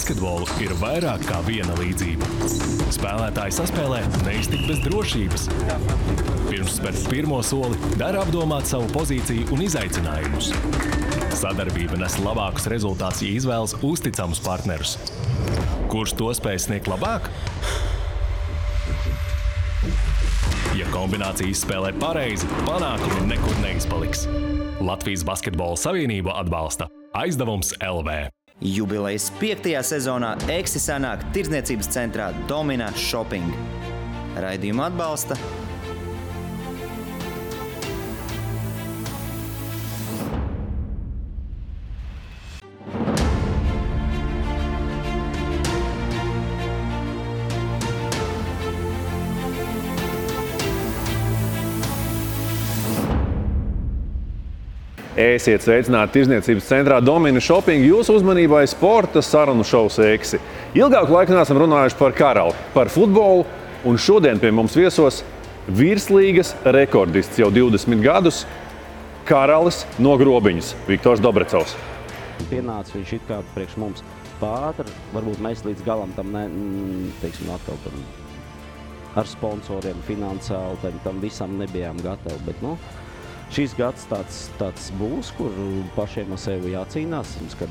basketbolu ir vairāk kā viena līdzība. Spēlētāji saspēlē neiztikt bez drošības. Pirms spērt pirmo soli, dara apdomāt savu pozīciju un izaicinājumus. Sadarbība nes labākus rezultātus, ja izvēlas uzticamus partnerus. Kurš to spēj sniegt labāk? Ja kombinācija izspēlē pareizi, panākumi nekur neizpaliks. Latvijas Basketbola Savienība atbalsta Aizdevums LV. Jubilejas 5. sezonā Eksi sanāk tirdzniecības centrā Domina Shopping. Raidījumu atbalsta Esiet sveicināti tirdzniecības centrā Domina Shopping. Jūsu uzmanībai sporta sarunu šovs Eksi. Ilgāku laiku neesam runājuši par karali, par futbolu, un šodien pie mums viesos virslīgas rekordists jau 20 gadus karalis no Grobiņas, Viktors Dobrecovs. Pienāca viņš it kā priekš mums pātri, varbūt mēs līdz galam tam teiksim, atkal tam ar sponsoriem, finansiāli, tam visam nebijām gatavi, bet, šis gads tāds būs, kur pašiem ar sevi jācīnās, kad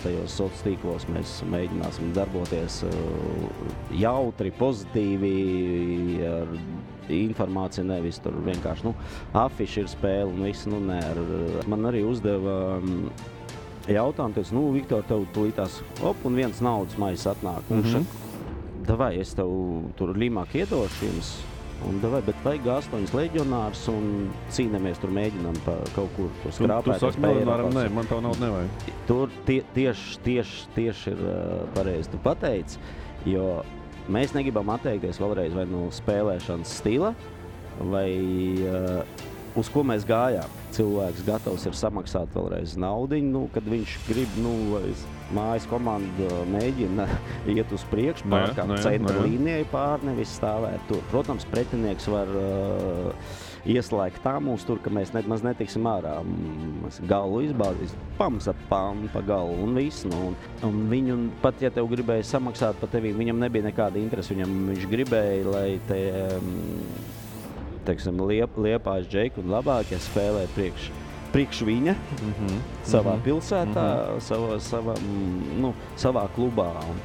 tajos sociālos tīklos mēs mēģināsim darboties jautri, pozitīvi, ar informāciju, nevis tur vienkārši, afiši ir spēle un viss, man arī uzdeva jautājumu, teicu, Viktor, tev tulītās, un viens naudas maizes atnāk, un davai, es tev tur līmāk iedošu jums, bet vajag 8 leģionārus un cīnamies tur mēģinām pa kaut kur to skrāpēt. Tu saki, nē, man tavu naudu nevajag. Tur tieši ir pareizi tu pateici, jo mēs negribam atteikties vēlreiz vai no spēlēšanas stila, vai uz ko mēs gājām. Cilvēks gatavs ir samaksāt vēlreiz naudiņu, kad viņš grib, mājas komanda mēģina iet uz priekšu, pārkāpt centra līnijai pār, nevis stāvēt tur. Protams, pretinieks var ieslēgt tā mums tur, ka mēs nemaz netiksim ārā. Mēs galu izbaudīs, pamaksāt pa galu un viss. Un viņu, pat ja tev gribēja samaksāt pa tevi, viņam nebija nekāda interese. Viņš gribēja, lai te teiksim, Liepājas Džeiku un labākie spēlē priekš viņa savā pilsētā, savā klubā. Un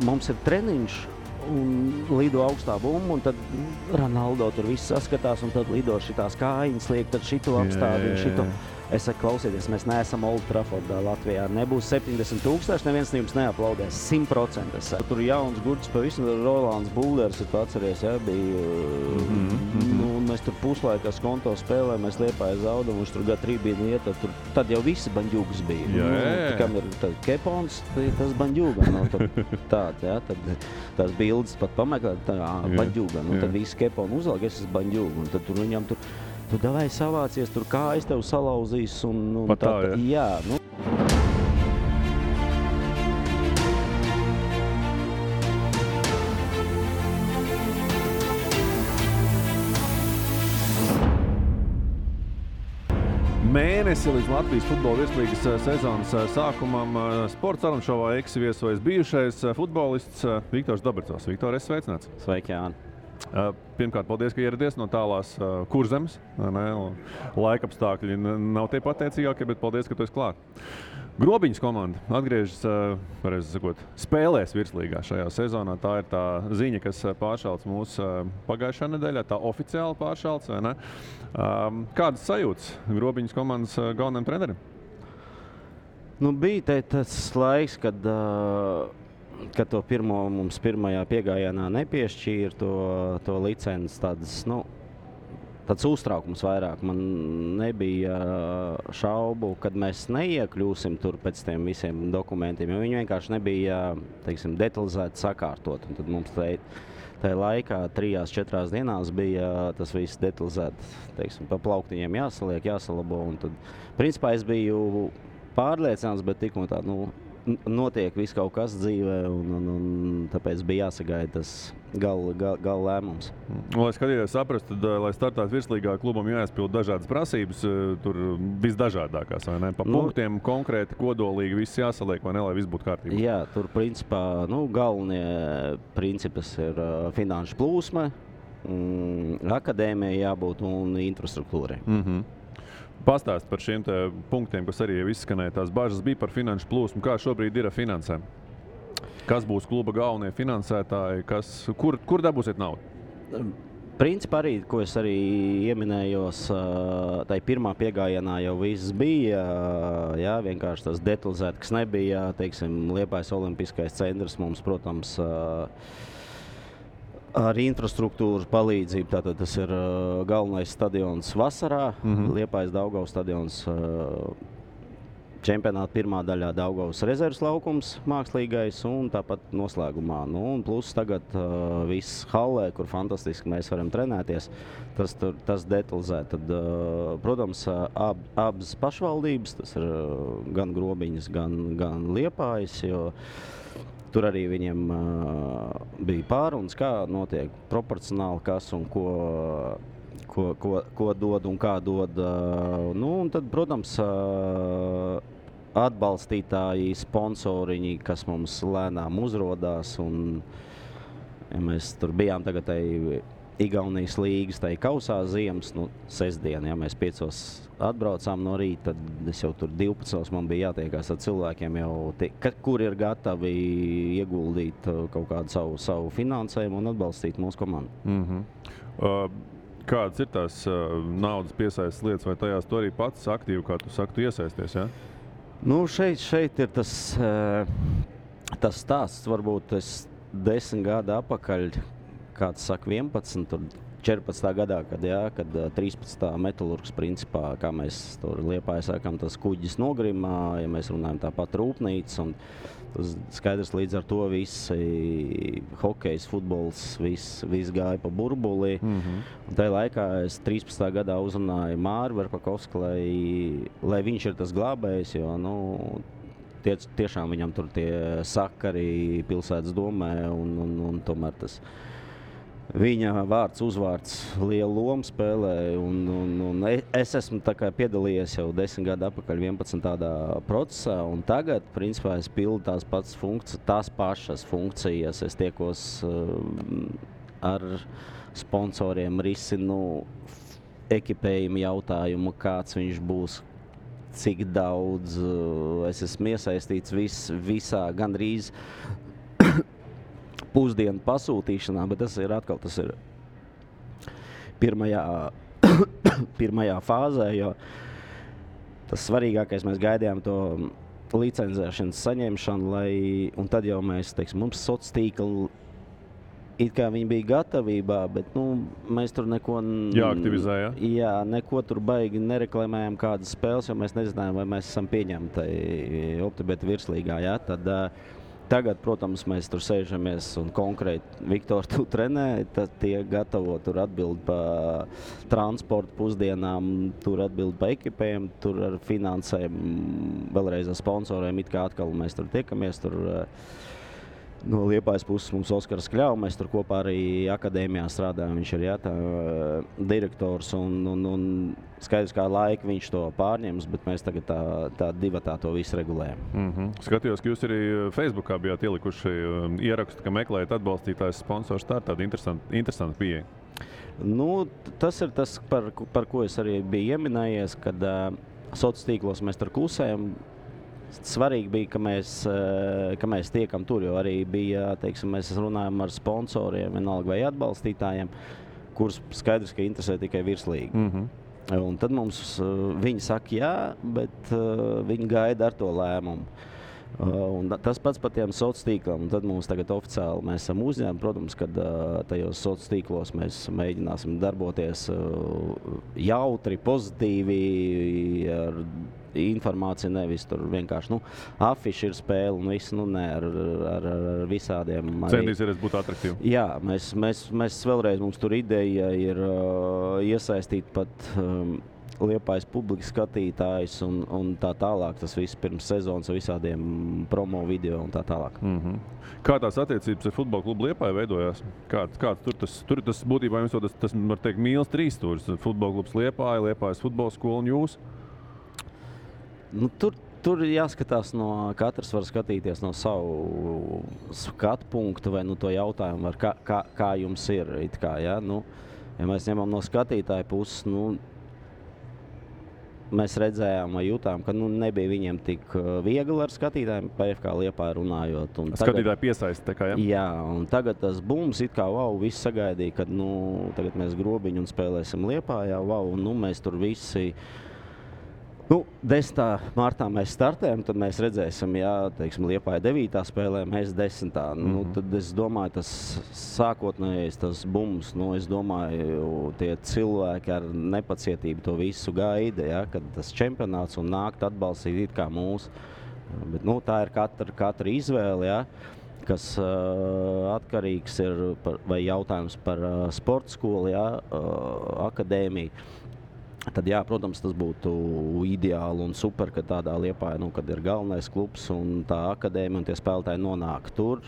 mums ir treniņš un lido augstā bumba, un tad Ronaldo tur viss saskatās, un tad lido šitās kājiņas liek, tad šito apstādi un šito. Es saku, klausieties, mēs neesam Old Traffordā Latvijā. Nebūs 70 000, neviens jums neaplaudēs. 100%. Tur jauns gurds pavisam, Rolands Bulders, ir atceries, bija. Un mēs tur puslaikā skonto spēlē, mēs Liepājas zaudam, viņš tur Gatrībīni iet, tad jau visi banģūgas bija. Kam ir Kepons, tas banģūga. Tāds, tad tās bildes pat pameklēt, banģūga. Tad visi Keponi uzlāk, es esmu banģūga. Un tad tur viņam tu davai savācies, tur kājas tev salauzīs un pat tā, jā. Mēnesi līdz Latvijas futbola virslīgas sezonas sākumam sporta sarunu šovā Eksi viesojas bijušais futbolists Viktors Dobrecovs. Viktor, esi sveicināts. Sveiki, Jāni. Pirmkārt, paldies, ka ieradies no tālās Kurzemes. Laikapstākļi nav tie pateicīgākie, bet paldies, ka tu esi klāt. Grobiņas komanda atgriežas, pareizi sakot, spēlēs virslīgā šajā sezonā. Tā ir tā ziņa, kas pāršalts mūsu pagājušā nedēļā, tā oficiāli pāršalts, vai ne? Kādas sajūtas Grobiņas komandas galvenajam trenerim? Bija tas laiks, kad to mums pirmajā piegājienā nepiešķīra to licenci, tāds uztraukums vairāk. Man nebija šaubu, kad mēs neiekļūsim tur pēc tiem visiem dokumentiem, jo viņi vienkārši nebija, teiksim, detalizēti sakārtot. Un tad mums tajā laikā 3-4 dienās bija tas viss detalizēti, teiksim, pa plauktiņiem jāsaliek, jāsalabo. Un tad, principā, es biju pārliecināts, bet tikko tā, notiek viss kaut kas dzīvē, un tāpēc bija jāsagaida tas gala lēmums. Lai skatīties saprast, tad, lai startētu virslīgā, klubam jāizpild dažādas prasības, tur visdažādākās, vai ne? Pa punktiem konkrēti, kodolīgi viss jāsaliek, vai ne, lai viss būtu kārtībā? Jā, tur principā, galvenie principus ir finanšu plūsma, akadēmija jābūt un infrastruktūrai. Pastāst par šiem punktiem, kas arī jau izskanēja. Tās bažas bija par finanšu plūsmu. Kā šobrīd ir ar finansēm? Kas būs kluba galvenie finansētāji? Kur dabūsiet naudu? Principā arī, ko es arī ieminējos, tai pirmā piegājienā jau viss bija. Jā, vienkārši tas detalizēti, kas nebija. Teiksim, Liepājas olimpiskais centrs mums, protams, ar infrastruktūras palīdzību. Tātad tas ir galvenais stadions vasarā, Liepājas Daugavas stadions, čempionāta pirmā daļā Daugavas rezerves laukums mākslīgais un tāpat noslēgumā. Un plus tagad viss hallē, kur fantastiski mēs varam trenēties, tas detalizēt. Tad, protams, abas pašvaldības, tas ir gan Grobiņas, gan Liepājas, jo tur arī viņiem bija pārunas, kā notiek proporcionāli, kas un ko dod un kā dod. Un tad, protams, atbalstītāji, sponsoriņi, kas mums lēnām uzrodās. Un, ja mēs tur bijām tagad Igaunijas līgas, kausā ziemas, sestdien, ja mēs 5 atbraucām no rīta, tad es jau tur 12 man bija jātiekās ar cilvēkiem, kur ir gatavi ieguldīt kaut kādu savu finansējumu un atbalstīt mūsu komandu. Kādas ir tās naudas piesaistes lietas, vai tajās tu arī pats aktīvi, kā tu saki, tu iesaisties, ja? Šeit ir tas stāsts, varbūt es 10 gadu apakaļ, kāds saka 11, tur 14. gadā, kad 13. metalurgs principā, kā mēs tur Liepājā sākam, tas kuģis nogrimā, ja mēs runājam tāpat rūpnīca, un tas skaidrs līdz ar to visi hokejs, futbols, viss gāja pa burbuli. Un tajā laikā es 13. gadā uzrunāju Māri Verpakovski, lai viņš ir tas glābējs, jo, tiešām viņam tur tie sakari pilsētas domē, un tomēr tas viņa vārds, uzvārds lielu lomu spēlē, un es esmu piedalījies jau 10 gadu atpakaļ 11 tādā procesā, un tagad, principā, es pildu tās pašas funkcijas, es tiekos ar sponsoriem, risinu ekipējumu jautājumu, kāds viņš būs, cik daudz, es esmu iesaistīts visā gandrīz pusdienu pasūtīšanā, bet tas ir pirmajā fāzē, jo tas svarīgākais mēs gaidījām to licencēšanas saņemšanu, un tad jau mēs, mums sociālā tīkla, it kā viņi bija gatavībā, bet mēs tur neko jāaktivizē, ja? Jā, neko tur baigi nereklamējām kādas spēles, jo mēs nezinājām, vai mēs esam pieņemti Optibeta virslīgā, ja? Tad tagad, protams, mēs tur sēžamies un konkrēti Viktor tu trenē, tad tie gatavo tur atbild pa transportu pusdienām, tur atbild pa ekipēm, tur ar finansēm, vēlreiz ar sponsoriem, it kā atkal mēs tur tiekamies, tur no Liepājas puses mums Oskars Kļau, mēs tur kopā arī akadēmijā strādājam, viņš ir direktors un skaidrs, kā laika viņš to pārņems, bet mēs tagad tā divatā to visu regulējam. Skatījos, ka jūs arī Facebookā bijāt ielikuši ierakstu, ka meklējat atbalstītājs sponsors, tā ir tāda interesanta pieeja. Tas ir tas, par ko es arī biju ieminējies, kad sociālos tīklos mēs tur klusējam. Svarīgi bija, ka mēs tiekam tur, jo arī bija, mēs runājam ar sponsoriem, vienalga vai atbalstītājiem, kurus skaidrs, ka interesē tikai virslīgi. Un tad mums viņi saka jā, bet viņi gaida ar to lēmumu. Un tas pats par tiem sociālos tīkliem, un tad mums tagad oficiāli mēs esam uzņēmumi, protams, kad tajos sociālos tīklos mēs mēģināsim darboties jautri, pozitīvi, ar informāciju, nevis tur vienkārši, afiši ir spēle un viss, ar visādiem. Centīsies būt atraktīvi. Jā, mēs vēlreiz, mums tur ideja ir iesaistīt pat Liepājas publikas skatītājs un tā tālāk. Tas viss pirms sezonas ar visādiem promo video un tā tālāk. Kā tās attiecības ar futbola klubu Liepāju veidojās? Kāds tur tas būtībā jums tas var teikt mīls trīsstūris? Futbola klubs Liepāja, Liepājas futbola skola un jūs? Nu, tur jāskatās katrs var skatīties no savu skatu punktu vai to jautājumu, kā jums ir. Ja mēs ņemam no skatītāja puses, mēs redzējām vai jutām, ka nebija viņiem tik viegli ar skatītājiem, PFK Liepāja runājot. Skatītāji piesaista, kā, ja? Jā, un tagad tas bums, viss sagaidīja, kad tagad mēs grobiņu un spēlēsim Liepājā, mēs tur visi. 10. martā mēs startējam, tad mēs redzēsim, Liepāja 9. spēlē, mēs 10. Tad es domāju, tas sākotnējais tas bums, es domāju, tie cilvēki ar nepacietību to visu gaida, kad tas čempionāts un nākt atbalstīt it kā mūs. Bet, tā ir katra izvēle, kas atkarīgs ir vai jautājums par sporta skolu, akadēmiju. Tad, protams, tas būtu ideāli un super, ka tādā Liepāja, kad ir galvenais klubs un tā akadēmija un tie spēlētāji nonāk tur.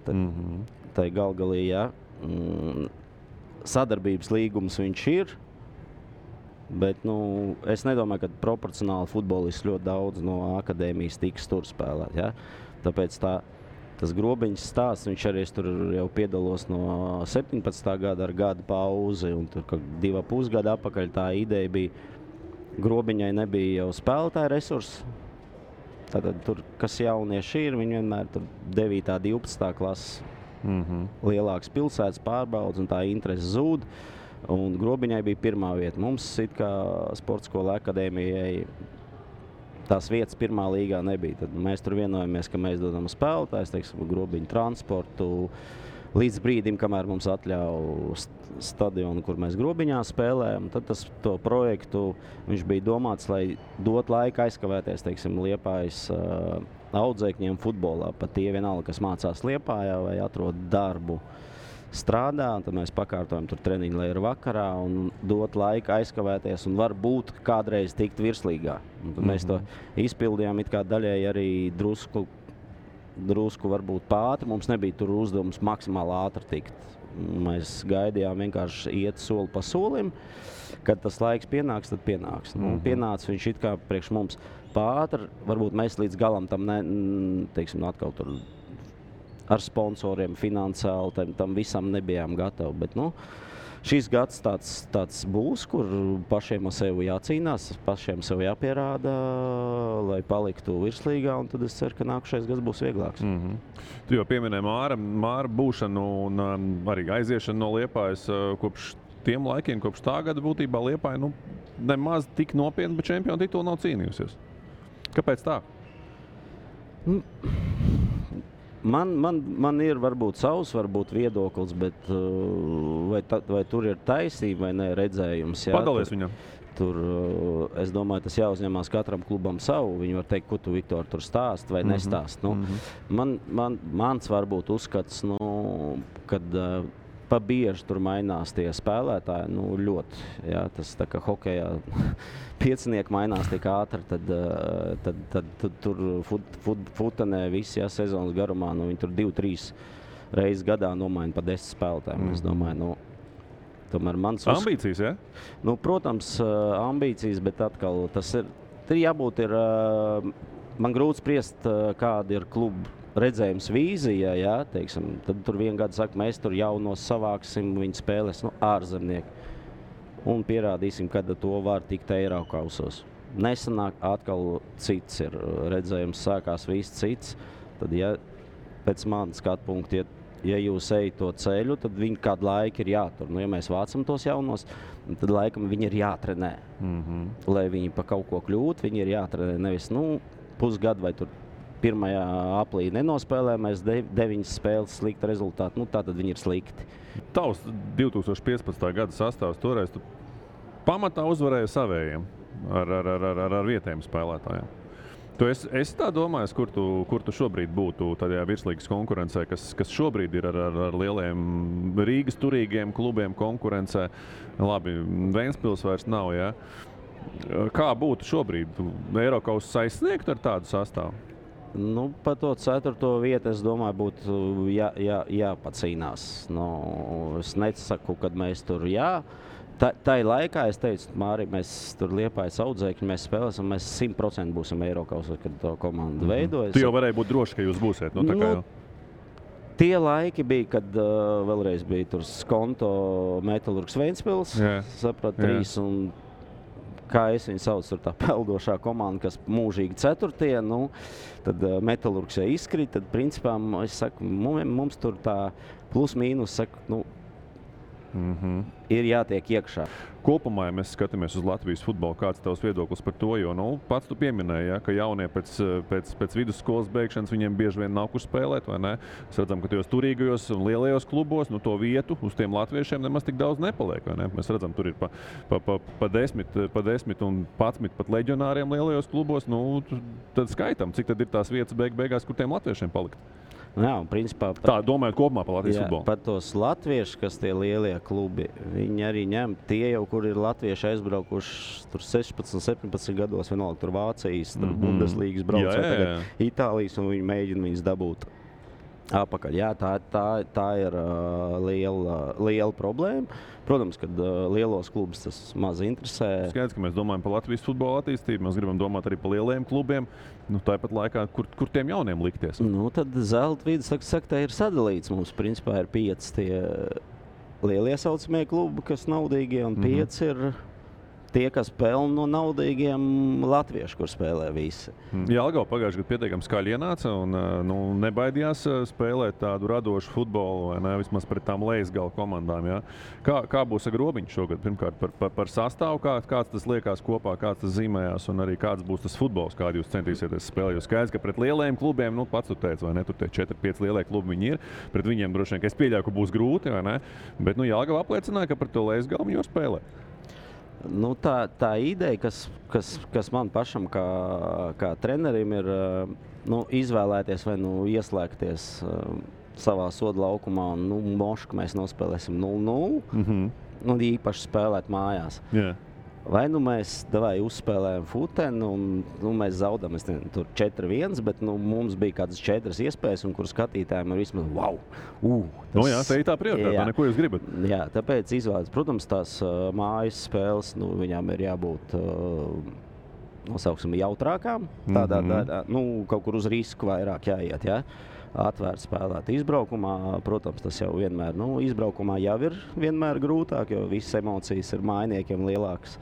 Tā galgalī, sadarbības līgums viņš ir, bet es nedomāju, ka proporcionāli futbolisti ļoti daudz no akadēmijas tiks tur spēlēt. Tāpēc tas grobiņas stāsts, viņš arī tur jau piedalos no 17. gada ar gada pauzi, un tur 2,5 gadu atpakaļ tā ideja bija, grobiņai nebija jau spēlētāja resursi. Tātad tur, kas jaunieši ir, viņi vienmēr tur 9. 12. klases lielākas pilsētas pārbaudas, un tā interese zūd, un grobiņai bija pirmā vieta. Mums, kā sporta skola akadēmijai, tās vietas pirmā līgā nebija. Tad mēs tur vienojamies, ka mēs dodam spēlētājus, grobiņu transportu, līdz brīdim, kamēr mums atļauj stadionu, kur mēs grobiņā spēlējam. Tad to projektu viņš bija domāts, lai dot laiku aizkavēties, Liepājas audzēkņiem futbolā. Pat tie vienalga, kas mācās Liepājā vai atrod darbu strādā, un tad mēs pakārtojam tur treniņu, lai ir vakarā un dot laiku aizkavēties un varbūt kādreiz tikt virslīgā. Mēs to izpildījām it kā daļēji arī drusku varbūt pātri. Mums nebija tur uzdevums maksimāli ātri tikt. Mēs gaidījām vienkārši iet soli pa solim. Kad tas laiks pienāks, tad pienāks. Pienāca viņš it kā priekš mums pātri. Varbūt mēs līdz galam tam atkal tur ar sponsoriem, finansiāli, tam visam nebijām gatavi. Bet, šis gads tāds būs, kur pašiem ar sevi jācīnās, pašiem sev jāpierāda, lai paliktu virslīgā, un tad es ceru, ka nākušais gads būs vieglāks. Tu jau pieminēji Māra būšanu un arī aiziešanu no Liepājas kopš tiem laikiem, kopš tā gada būtībā Liepāja nemaz tik nopietni, bet čempionu titulu nav cīnījusies. Kāpēc tā? Man ir varbūt savs viedoklis, bet vai tur ir taisība vai ne redzējums? Padalies viņam. Tur, es domāju, tas jāuzņemās katram klubam savu. Viņi var teikt, ko tu, Viktor, tur stāst vai nestāst. Mans varbūt uzskats, kad pa bieži tur mainās tie spēlētāji, ļoti. Tas tā kā hokejā piecinieki mainās tik ātri, tad tur futenē visi sezonas garumā, viņi tur 2-3 reizes gadā nomaina pa 10 spēlētājiem. Es domāju, tomēr mans ambīcijas, ja? Protams, ambīcijas, bet atkal tas ir jābūt man grūti spriest, kāda ir kluba redzējums vīzija, tad tur vien gadu saka, mēs tur jaunos savāksim, viņi spēlēs ārzemnieki un pierādīsim, kad to var tikt Eirokausos. Nesanāk atkal cits ir redzējums, sākās viss cits, tad pēc manas skatu punkta, ja jūs ejat to ceļu, tad viņi kādu laiku ir jātur. Ja mēs vācam tos jaunos, tad laikam viņi ir jātrenē. Lai viņi pa kaut ko kļūtu, viņi ir jātrenē nevis pusgadu vai tur 1. aplī nenospēlē, mēs 9 spēles slikti rezultāti, tātad viņi ir slikti. Tavs 2015. gada sastāvs toreiz tu pamatā uzvarēja savējiem ar vietējiem spēlētājiem. Tu esi tā domājis, kur tu šobrīd būtu tajā virslīgas konkurencē, kas šobrīd ir ar lieliem Rīgas turīgiem klubiem konkurencē. Labi, Ventspils vairs nav, Kā būtu šobrīd? Eirokausa aizsniegt ar tādu sastāvu? Nu, par to 4. vietu, es domāju, būtu jāpacīnās. Nu, es nesaku, kad mēs tur Tā laikā es teicu, Māri, mēs tur Liepājas Audzēkņi, mēs spēlēsim, mēs 100% būsim Eirokausa, kad to komandu veidojas. Tu jau varēja būt droši, ka jūs būsiet. Tā kā jau. Tie laiki bija, kad vēlreiz bija tur Skonto Metalurgs Ventspils, saprat, 3 un kā es viņu saucu, tur tā peldošā komanda, kas mūžīgi 4. Nu, tad Metalurgs jau izkrīt, tad principā es saku, mums tur tā plus mīnus, saku, ir jātiek iekšā. Kopumā, ja mēs skatāmies uz Latvijas futbolu, kāds tavs viedoklis par to, jo pats tu pieminēji, ka jaunie pēc vidusskolas beigšanas viņiem bieži vien nav kur spēlēt, vai ne? Mēs redzam, ka tajos turīgajos un lielajos klubos to vietu uz tiem latviešiem nemaz tik daudz nepaliek, vai ne? Mēs redzam, tur ir pa 10 un 11 pat leģionāriem lielajos klubos, tad skaitam, cik tad ir tās vietas beigās, kur tiem latviešiem palikt. Jā, un principā tā domājot kopumā par Latvijas futbolu. Pat tos latviešus, kas tie lielie klubi, viņi arī ņem tie jau, kur ir latvieši aizbraukuši tur 16, 17 gados, vienalga tur Vācijas, tur Bundeslīgas brauc, tagad Itālijas, un viņi mēģina viņus dabūt apakaļ. Jā, tā ir liela problēma. Protams, kad lielos klubus tas maz interesē. Skaidrs, ka mēs domājam par Latvijas futbola attīstību, mēs gribam domāt arī par lielajiem klubiem. Tāpat laikā, kur tiem jauniem likties? Tad zelta vidus, saka, tā ir sadalīts. Mums principā ir 5 tie lielie saucamie klubi, kas naudīgie, un 5 ir tie, kas pelna no naudīgiem latviešu, kur spēlē visi. Jelgava pagājušajā gadā pietiekami skaļi ienāca un nebaidījās spēlēt tādu radošu futbolu, vai ne, vismaz pret tām lejasgala komandām. Ja? Kā būs ar Grobiņu šogad? Pirmkārt, par sastāvu, kāds tas liekas kopā, kāds tas zīmējās, un arī kāds būs tas futbols, kādu jūs centīsieties spēlēt. Jo skaidrs, ka pret lielajiem klubiem, pats tu teici, vai ne, tur tie 4-5 lielie klubi viņi ir. Pret viņiem droši vien, ka es pieļauju, ka būs grūti, vai ne? Bet Jelgava apliecināja, ka pret to lejasgalu viņi var spēlēt. Tā ideja, kas man pašam kā trenerim ir izvēlēties vai ieslēgties savā soda laukumā un mošu, ka mēs nospēlēsim 0-0, īpaši spēlēt mājās. Yeah. Vai mēs uzspēlējam futeni un mēs zaudam tur 4-1, bet mums bija kādas 4 iespējas, un kur skatītājiem ir vismaz wow! Jā, tā ir tā prioritāte, neko jūs gribat. Jā, tāpēc izvēlēties. Protams, tās mājas spēles, viņām ir jābūt nosauksim jautrākām, tādā, kaut kur uz risku vairāk jāiet, jā. Atvērt spēlēt izbraukumā, protams, tas jau vienmēr, izbraukumā jau ir vienmēr grūtāk, jo visas emocijas ir mājiniekiem lielākas.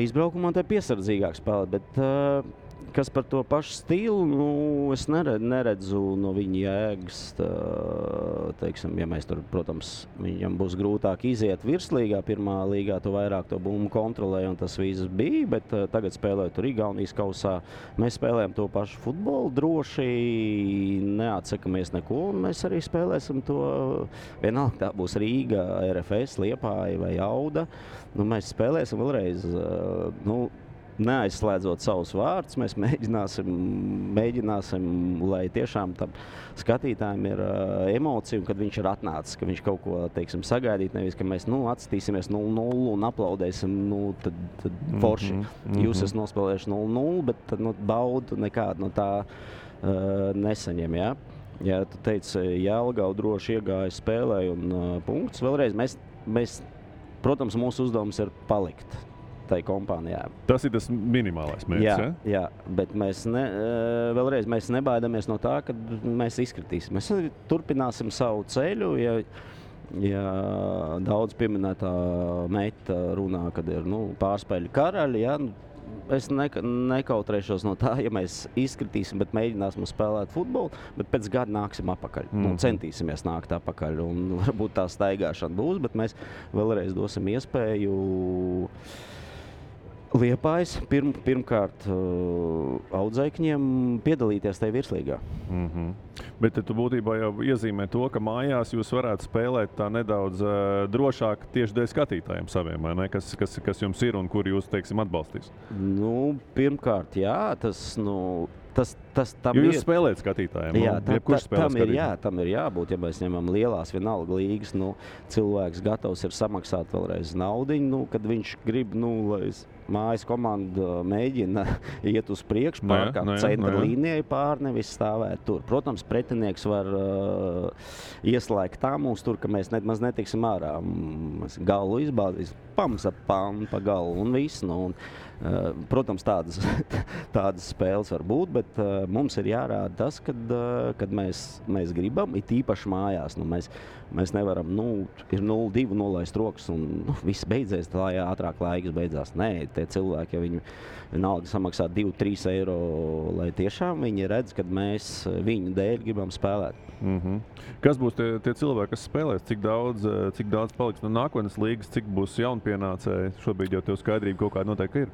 Izbraukumā te piesardzīgāk spēlēt, bet kas par to pašu stilu, es neredzu no viņa jēgas, teiksim, ja mēs tur, protams, viņam būs grūtāk iziet virslīgā, pirmā līgā, tu vairāk to bumbu kontrolē, un tas viss bija, bet tagad spēlējot tur Igaunijas kausā, mēs spēlējam to pašu futbolu, droši neatsakamies neko, un mēs arī spēlēsim to, vienalga tā būs Rīga, RFS, Liepāja vai Auda, mēs spēlēsim vēlreiz, neaizslēdzot savus vārdus, mēs mēģināsim, lai tiešām tam skatītājiem ir emocija, un kad viņš ir atnācis, ka viņš kaut ko, teiksim, sagaidīt, nevis, ka mēs, atstīsimies 0-0 un aplaudēsim, tad forši. Jūs esat nospēlējuši 0-0, bet tad, baudu nekādu no tā nesaņem, jā. Ja tu teici, Jelgava droši iegāja spēlē un punkts. Vēlreiz, mēs, protams, mūsu uzdevums ir palikt tai kompānijā. Tas ir tas minimālais mērķis, jā, bet mēs nebaidamies no tā, ka mēs izkritīsim. Mēs turpināsim savu ceļu, ja daudz pieminētā meita runā, kad ir pārspēļu karaļi, es nekautrēšos no tā, ja mēs izkritīsim, bet mēģināsim spēlēt futbolu, bet pēc gada nāksim apakaļ. Centīsimies nākt apakaļ, un varbūt tā staigāšana būs, bet mēs vēlreiz dosim iespēju Liepājas pirmkārt audzēkņiem piedalīties tajā virslīgā. Bet tu būtībā jau iezīmē to, ka mājās jūs varētu spēlēt tā nedaudz drošāk tieši dēļ skatītājiem saviem, vai ne? Kas jums ir un kur jūs, teiksim, atbalstīs? Pirmkārt, jā, tas, tam jo jūs spēlējat skatītājiem. Jā, tam ir skatītājiem. jābūt, ja mēs ņemam lielās vienalga līgas, cilvēks gatavs ir samaksāt vēlreiz naudiņu, kad viņš grib, lai mājas komanda mēģina iet uz priekšu, pārkāpt centra līnijai pār, nevis stāvēt tur. Protams, pretinieks var ieslēgt tā mums tur, ka mēs maz netiksim ārā. Galu izbāzīs, pamsa pa galu un viss. Protams, tādas spēles var būt, bet mums ir jārāda tas, kad mēs gribam, it īpaši mājās. Mēs nevaram, ir 0-2 nolaist rokas un viss beidzies, lai ātrāk laiks beidzās. Nē, tie cilvēki, ja viņi vienalga samaksā 2-3 eiro, lai tiešām viņi redz, kad mēs viņu dēļ gribam spēlēt. Kas būs tie cilvēki, kas spēlēs? Cik daudz paliks no nākotnes līgas, cik būs jaunpienācēji? Šobrīd jau tev skaidrība kaut kāda noteikti ir.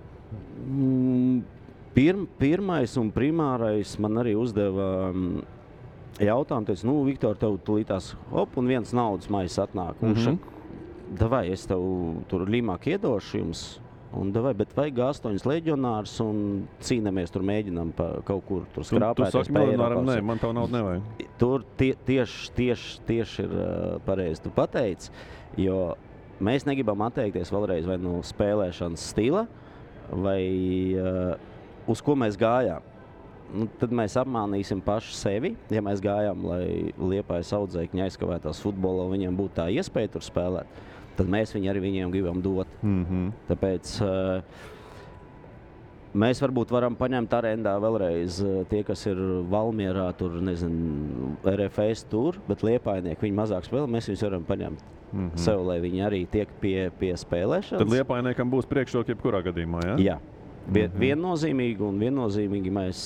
Pirmais un primārais man arī uzdeva jautājumu, teica, Viktor, tev tulītās un viens naudas maizes atnāk. Un davai, es tev tur līmāk iedošu jums, un davai, bet vajag 8 leģionārus un cīnamies tur mēģinām kaut kur tur skrāpēties. Tu saki leģionāram, nē, man tavu naudu nevajag. Tur tieši ir pareizi tu pateici, jo mēs negribam atteikties vēlreiz vai no spēlēšanas stila, vai uz ko mēs gājām. Tad mēs apmānīsim paši sevi, ja mēs gājām, lai Liepājas audzēkņi aizkavētās futbolā un viņiem būtu tā iespēja tur spēlēt, tad mēs arī viņiem gribam dot. Tāpēc mēs varbūt varam paņemt arendā vēlreiz tie, kas ir Valmierā, tur, RFS tur, bet Liepājnieki viņi mazāk spēlē, mēs viņus varam paņemt sev, lai viņi arī tiek pie spēlēšanas. Tad Liepājniekam būs priekšroka jebkurā gadījumā, ja? Jā. Viennozīmīgi mēs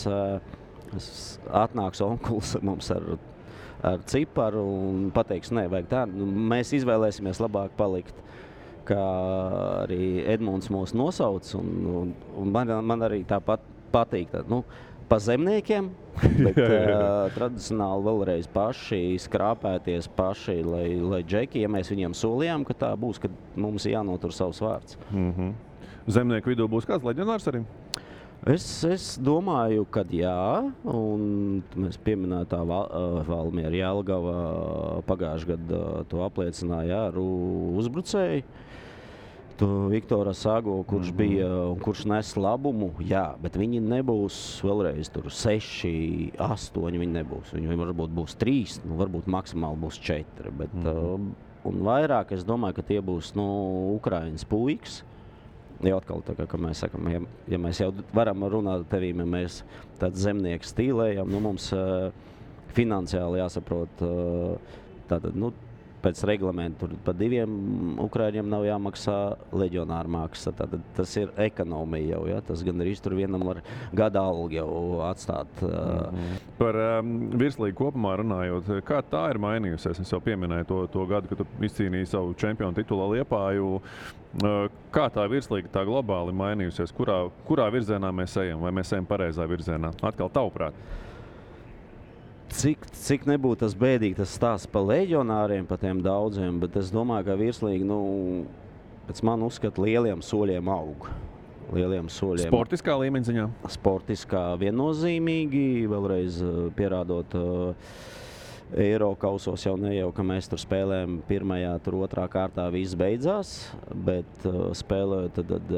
atnāks onkulis mums ar ciparu un pateiks, nē, vajag tā. Mēs izvēlēsimies labāk palikt, kā arī Edmunds mūs nosauc. Un man arī tāpat patīk. Pa zemniekiem, bet tradicionāli vēlreiz paši skrāpēties paši, lai džeki, ja mēs viņiem solījām, ka tā būs, kad mums jānotur savs vārds. Zemnieku vidū būs kāds leģionārs arī? Es domāju, ka jā, un mēs pieminētā Valmiera Jelgava pagājušajā gadā to apliecināja ar uzbrucēju. Viktora Sago, kurš bija un kurš nes labumu, jā, bet viņi nebūs vēlreiz tur 6, 8, viņi nebūs. Viņi varbūt būs 3, varbūt maksimāli būs 4, bet un vairāk es domāju, ka tie būs Ukrainas puikas. Jau atkal, tā kā mēs sakam, ja mēs jau varam runāt ar tevīm, ja mēs tāds zemnieks stīlējam, mums finansiāli jāsaprot, tātad, pēc reglamentu pa 2 Ukraiņiem nav jāmaksā leģionāra maksa. Tātad tas ir ekonomija jau, ja? Tas gan arī tur vienam var gada algu jau atstāt. Par virslīgu kopumā runājot, kā tā ir mainījusies? Es jau pieminēju to gadu, kad tu izcīnīji savu čempionu titulu Liepāju. Kā tā virslīga tā globāli mainījusies? Kurā virzienā mēs ejam? Vai mēs ejam pareizā virzienā? Atkal tavuprāt. Cik nebūtu tas bēdīgi, tas stāsts par leģionāriem, par tiem daudziem, bet es domāju, ka virslīgi, pēc man uzskata, lieliem soļiem aug. Sportiskā līmeņa ziņā? Sportiskā viennozīmīgi, vēlreiz pierādot Eirokausos jau ka mēs tur spēlējam pirmajā, tur otrā kārtā viss beidzās, bet spēlējot tad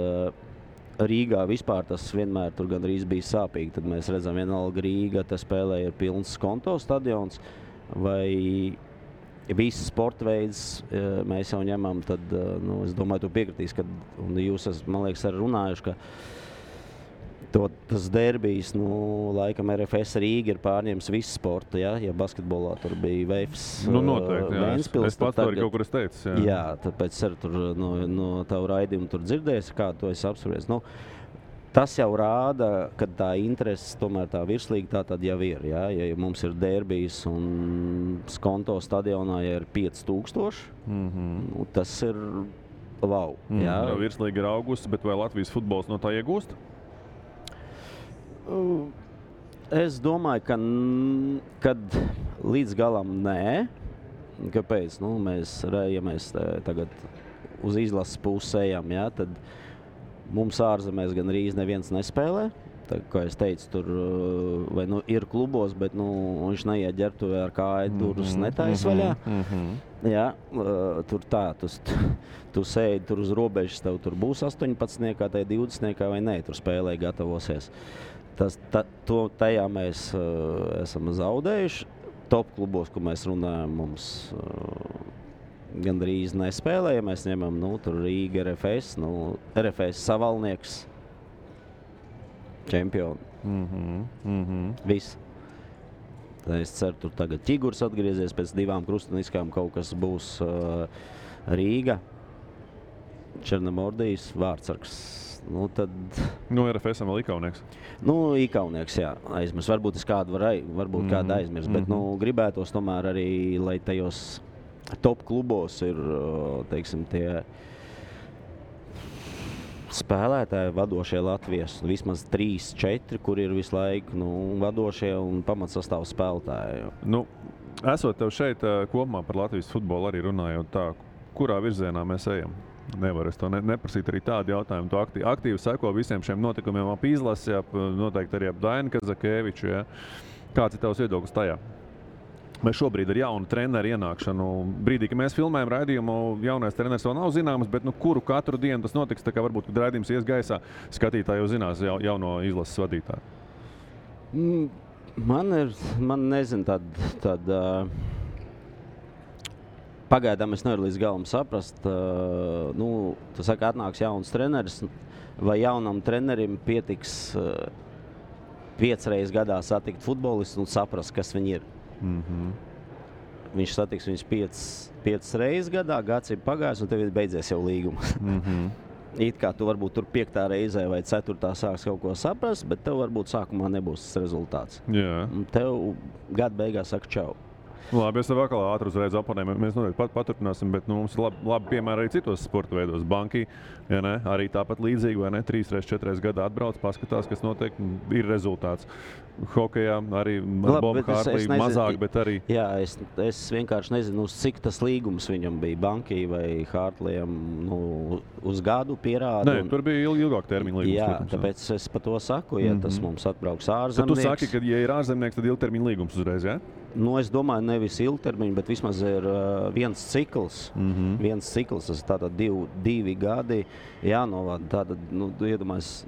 Rīgā vispār tas vienmēr tur gandrīz bija sāpīgi. Tad mēs redzam, vienalga Rīga, tas spēlē ir pilns Skonto stadions, vai viss sporta veids mēs jau ņemam, tad, es domāju, tu piekritīs, un jūs esat, man liekas, arī runājuši, ka tas derbijs, laikam RFS Rīga ir pārņēmis visu sportu, ja basketbolā tur bija Veifs, noteikti, jā. Ventspils. Es pats arī kaut kur es teicu, jā. Jā, tāpēc arī tur no tavu raidījumu tur dzirdēs, kā to es apspriest. Tas jau rāda, ka tā interese, tomēr tā virslīga tā tad jau ir, ja mums ir derbijs un Skonto stadionā ja ir 5000, tas ir wow. Jā. Virslīga ir augusi, bet vai Latvijas futbols no tā iegūst? Es domāju, kad līdz galam nē. Kāpēc? Ja mēs tagad uz izlases pusi ejam, tad mums ārzemēs gan arī neviens nespēlē. Tā, kā es teicu, tur vai nu ir klubos, bet viņš neiet ģērbtuvē ar kāju durvis netaisa vaļā. Jā, tur tā, tu sēdi tur uz robežas, tev tur būs 18, tai 20 vai nē, tur spēlē gatavosies. Tajā mēs esam zaudējuši. Top klubos, ko mēs runājam, mums gandrīz nespēlē, ja mēs ņemam, tur Rīga, RFS, RFS Savalnieks, čempioni. Viss. Tā es ceru, tur tagad Ķigurs atgriezies pēc 2 krustuniskām, kaut kas būs Rīga, Černomordijas, Vārtsargs. Tad... RFS-am vēl Ikaunieks. Ikaunieks, jā, aizmirs. Varbūt es kādu varbūt kādu aizmirs, bet gribētos tomēr arī, lai tajos top klubos ir, teiksim, tie spēlētāji, vadošie Latvijas, vismaz 3-4, kur ir visu laiku vadošie un pamatsastāvu spēlētāji. Esot tev šeit kopumā par Latvijas futbolu arī runājot tā, kurā virzienā mēs ejam? Nevar es to neprasīt arī tādu jautājumu. Tu aktīvi seko visiem šiem notikumiem ap izlasi, noteikti arī ap Dainu Kazakēviču. Ja? Kāds ir tavs viedoklis tajā? Mēs šobrīd ar jaunu treneru ienākšanu, brīdī, kad mēs filmējam raidījumu, jaunais treneris vēl nav zināms, bet kuru katru dienu tas notiks, tā kā varbūt, kad raidījums ies gaisā, skatītāji jau zinās jauno izlases vadītāju. Man nezinu, pagaidām es nevaru līdz galam saprast. Tu saki, atnāks jauns treneris, vai jaunam trenerim pietiks 5 reizes gadā satikt futbolistu un saprast, kas viņi ir. Viņš satiks viņus 5 reizes gadā, gads ir pagājis un tev ir beidzies jau līgums. It kā tu varbūt tur 5. reizē vai 4. sāks kaut ko saprast, bet tev varbūt sākumā nebūs tas rezultāts. Jā. Tev gada beigās saka čau. Labi, es tev atkal ātri uzreiz oponēju. Mēs noteikti paturpināsim, bet mums ir labi piemēri arī citos sporta veidos. Banki, ja ne, arī tāpat līdzīgi, vai ne, 3-4 gadā atbrauc, paskatās, kas notiek, ir rezultāts. Hokejā arī Boba Hārtlī mazāk, bet arī... Jā, es vienkārši nezinu, uz cik tas līgums viņam bija Banki vai Hārtliem uz gadu pierāda. Nē, tur bija ilgāk termiņa līgums. Jā, protams, tāpēc es par to saku, ja tas mums atbrauks ārzemnieks. Tad tu saki, ka ja ir ārzemnieks, tad ilgtermiņa līgums uzreiz, jā? Es domāju, nevis ilgtermiņa, bet vismaz ir viens cikls. Viens cikls, tas tātad 2 gadi jānovada. Tātad, iedomājies,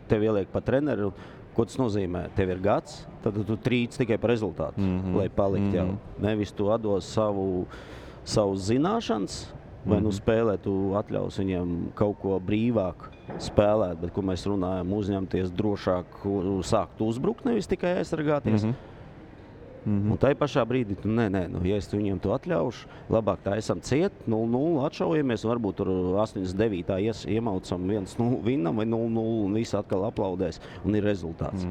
tev ieliek pa treneru. Ko tas nozīmē? Tev ir gads, tad tu trīc tikai par rezultātu, lai palikt jau. Nevis tu atdos savu zināšanas, vai spēlē tu atļaus viņiem kaut ko brīvāk spēlēt, bet, ko mēs runājam, uzņemties drošāk, sākt uzbrukt, nevis tikai aizsargāties. Un tai pašā brīdī, ja es viņiem to atļaušu, labāk tā esam ciet, 0-0 atšaujamies, un varbūt tur 89. iemaucam 1-0 vinnam vai 0-0 un visi atkal aplaudēs, un ir rezultāts.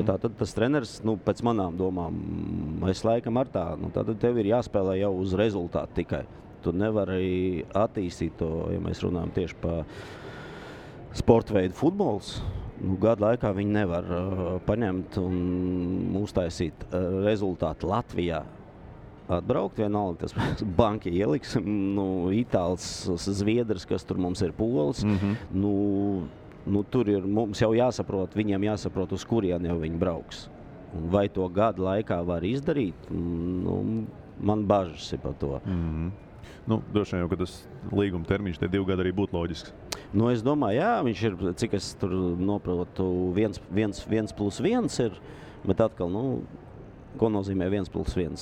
Tātad tas treneris, pēc manām domām, es laikam ar tā, tad tev ir jāspēlē jau uz rezultātu tikai. Tu nevari attīstīt to, ja mēs runājam tieši pa sporta veidu futbols. Gadu laikā viņi nevar paņemt un uztaisīt rezultātu Latvijā. Atbraukt vienalga, tas Banki ieliks, Itāls, Zviedrs, kas tur mums ir Pols. Tur ir mums jau jāsaprot, viņiem jāsaprot, uz kurien jau viņi brauks. Un vai to gadu laikā var izdarīt, man bažas ir par to. Droši vien jau, ka tas līguma termiņš tie 2 gadi arī būtu loģisks. Es domāju, jā, viņš ir, cik es tur noprotu, 1+1 ir, bet atkal, ko nozīmē 1+1?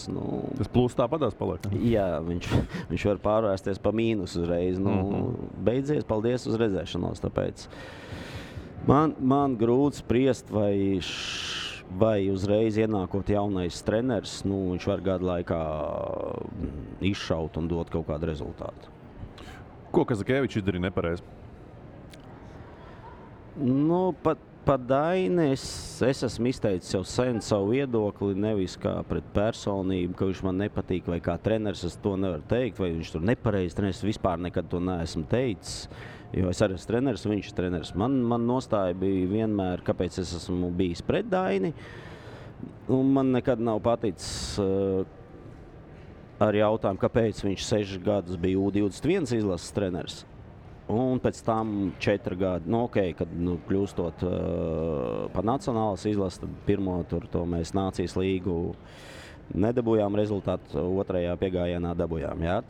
Tas plus tāpatās paliek. Jā, viņš var pārvērsties pa mīnus uzreiz. Beidzies, paldies uz redzēšanos, tāpēc man grūti spriest, vai uzreiz ienākot jaunais treneris, viņš var gadu laikā izšaut un dot kaut kādu rezultātu. Ko Kazakēvičs izdarīja nepareizi? Par Dainu es esmu izteicis jau sen savu viedokli, nevis kā pret personību, ka viņš man nepatīk, vai kā treneris, es to nevaru teikt, vai viņš tur nepareizi treneris, vispār nekad to neesmu teicis, jo es arī esmu treneris, viņš ir treneris. Man nostāja bija vienmēr, kāpēc es esmu bijis pret Daini, un man nekad nav paticis ar jautājumu, kāpēc viņš 6 gadus bija U21 izlases treneris. Un pēc tam 4 gadi, kad kļūstot par nacionālas izlases, tad pirmo tur to mēs Nācijas līgu nedabūjām rezultātu, otrajā piegājienā dabūjām. Jā?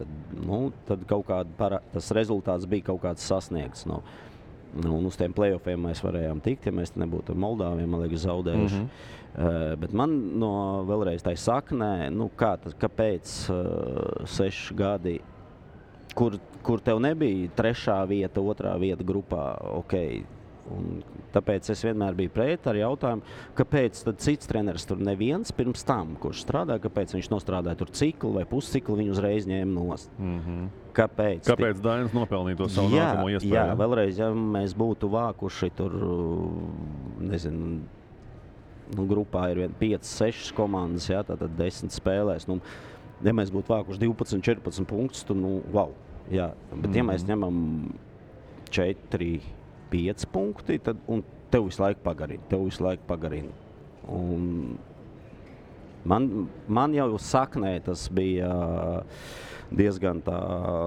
Tad kaut kāda tas rezultāts bija kaut kāds sasniegts. Un uz tiem play-offiem mēs varējām tikt, ja mēs nebūtu ar Moldāviem, man liekas, zaudējuši. Bet man vēlreiz tā saknē, kāpēc 6 gadi, kur tev nebija 3. vieta, 2. vieta grupā, Un tāpēc es vienmēr biju pret ar jautājumu, kāpēc tad cits treneris tur neviens pirms tam, kurš strādā, kāpēc viņš nostrādāja tur ciklu vai pusciklu, viņu uzreiz ņēma nost. Kāpēc Dainis nopelnīja to savu nākamo iespēju? Jā, vēlreiz, ja mēs būtu vākuši tur, nezinu, grupā ir 5-6 komandas, jā, tātad 10 spēlēs. Ja mēs būtu vākuši 12-14 punktus, tad, wow. Jā. Bet ja mēs ņemam 4-5 punkti, tad, un tev visu laiku pagarina. Un man jau saknē tas bija diezgan tā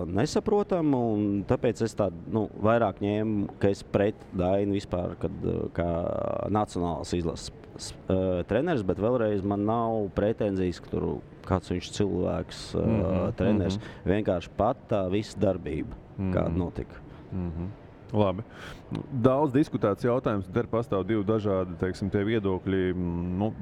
nesaprotam, un tāpēc es tādu vairāk ņēmu, ka es pret Dainu vispār, kā nacionālas izlases treneris, bet vēlreiz man nav pretenzijas, ka tur kāds viņš cilvēks, treneris, vienkārši pat tā visa darbība, kāda notika. Labi. Daudz diskutēts jautājums, te pastāv 2 dažādi, teiksim, tie viedokļi.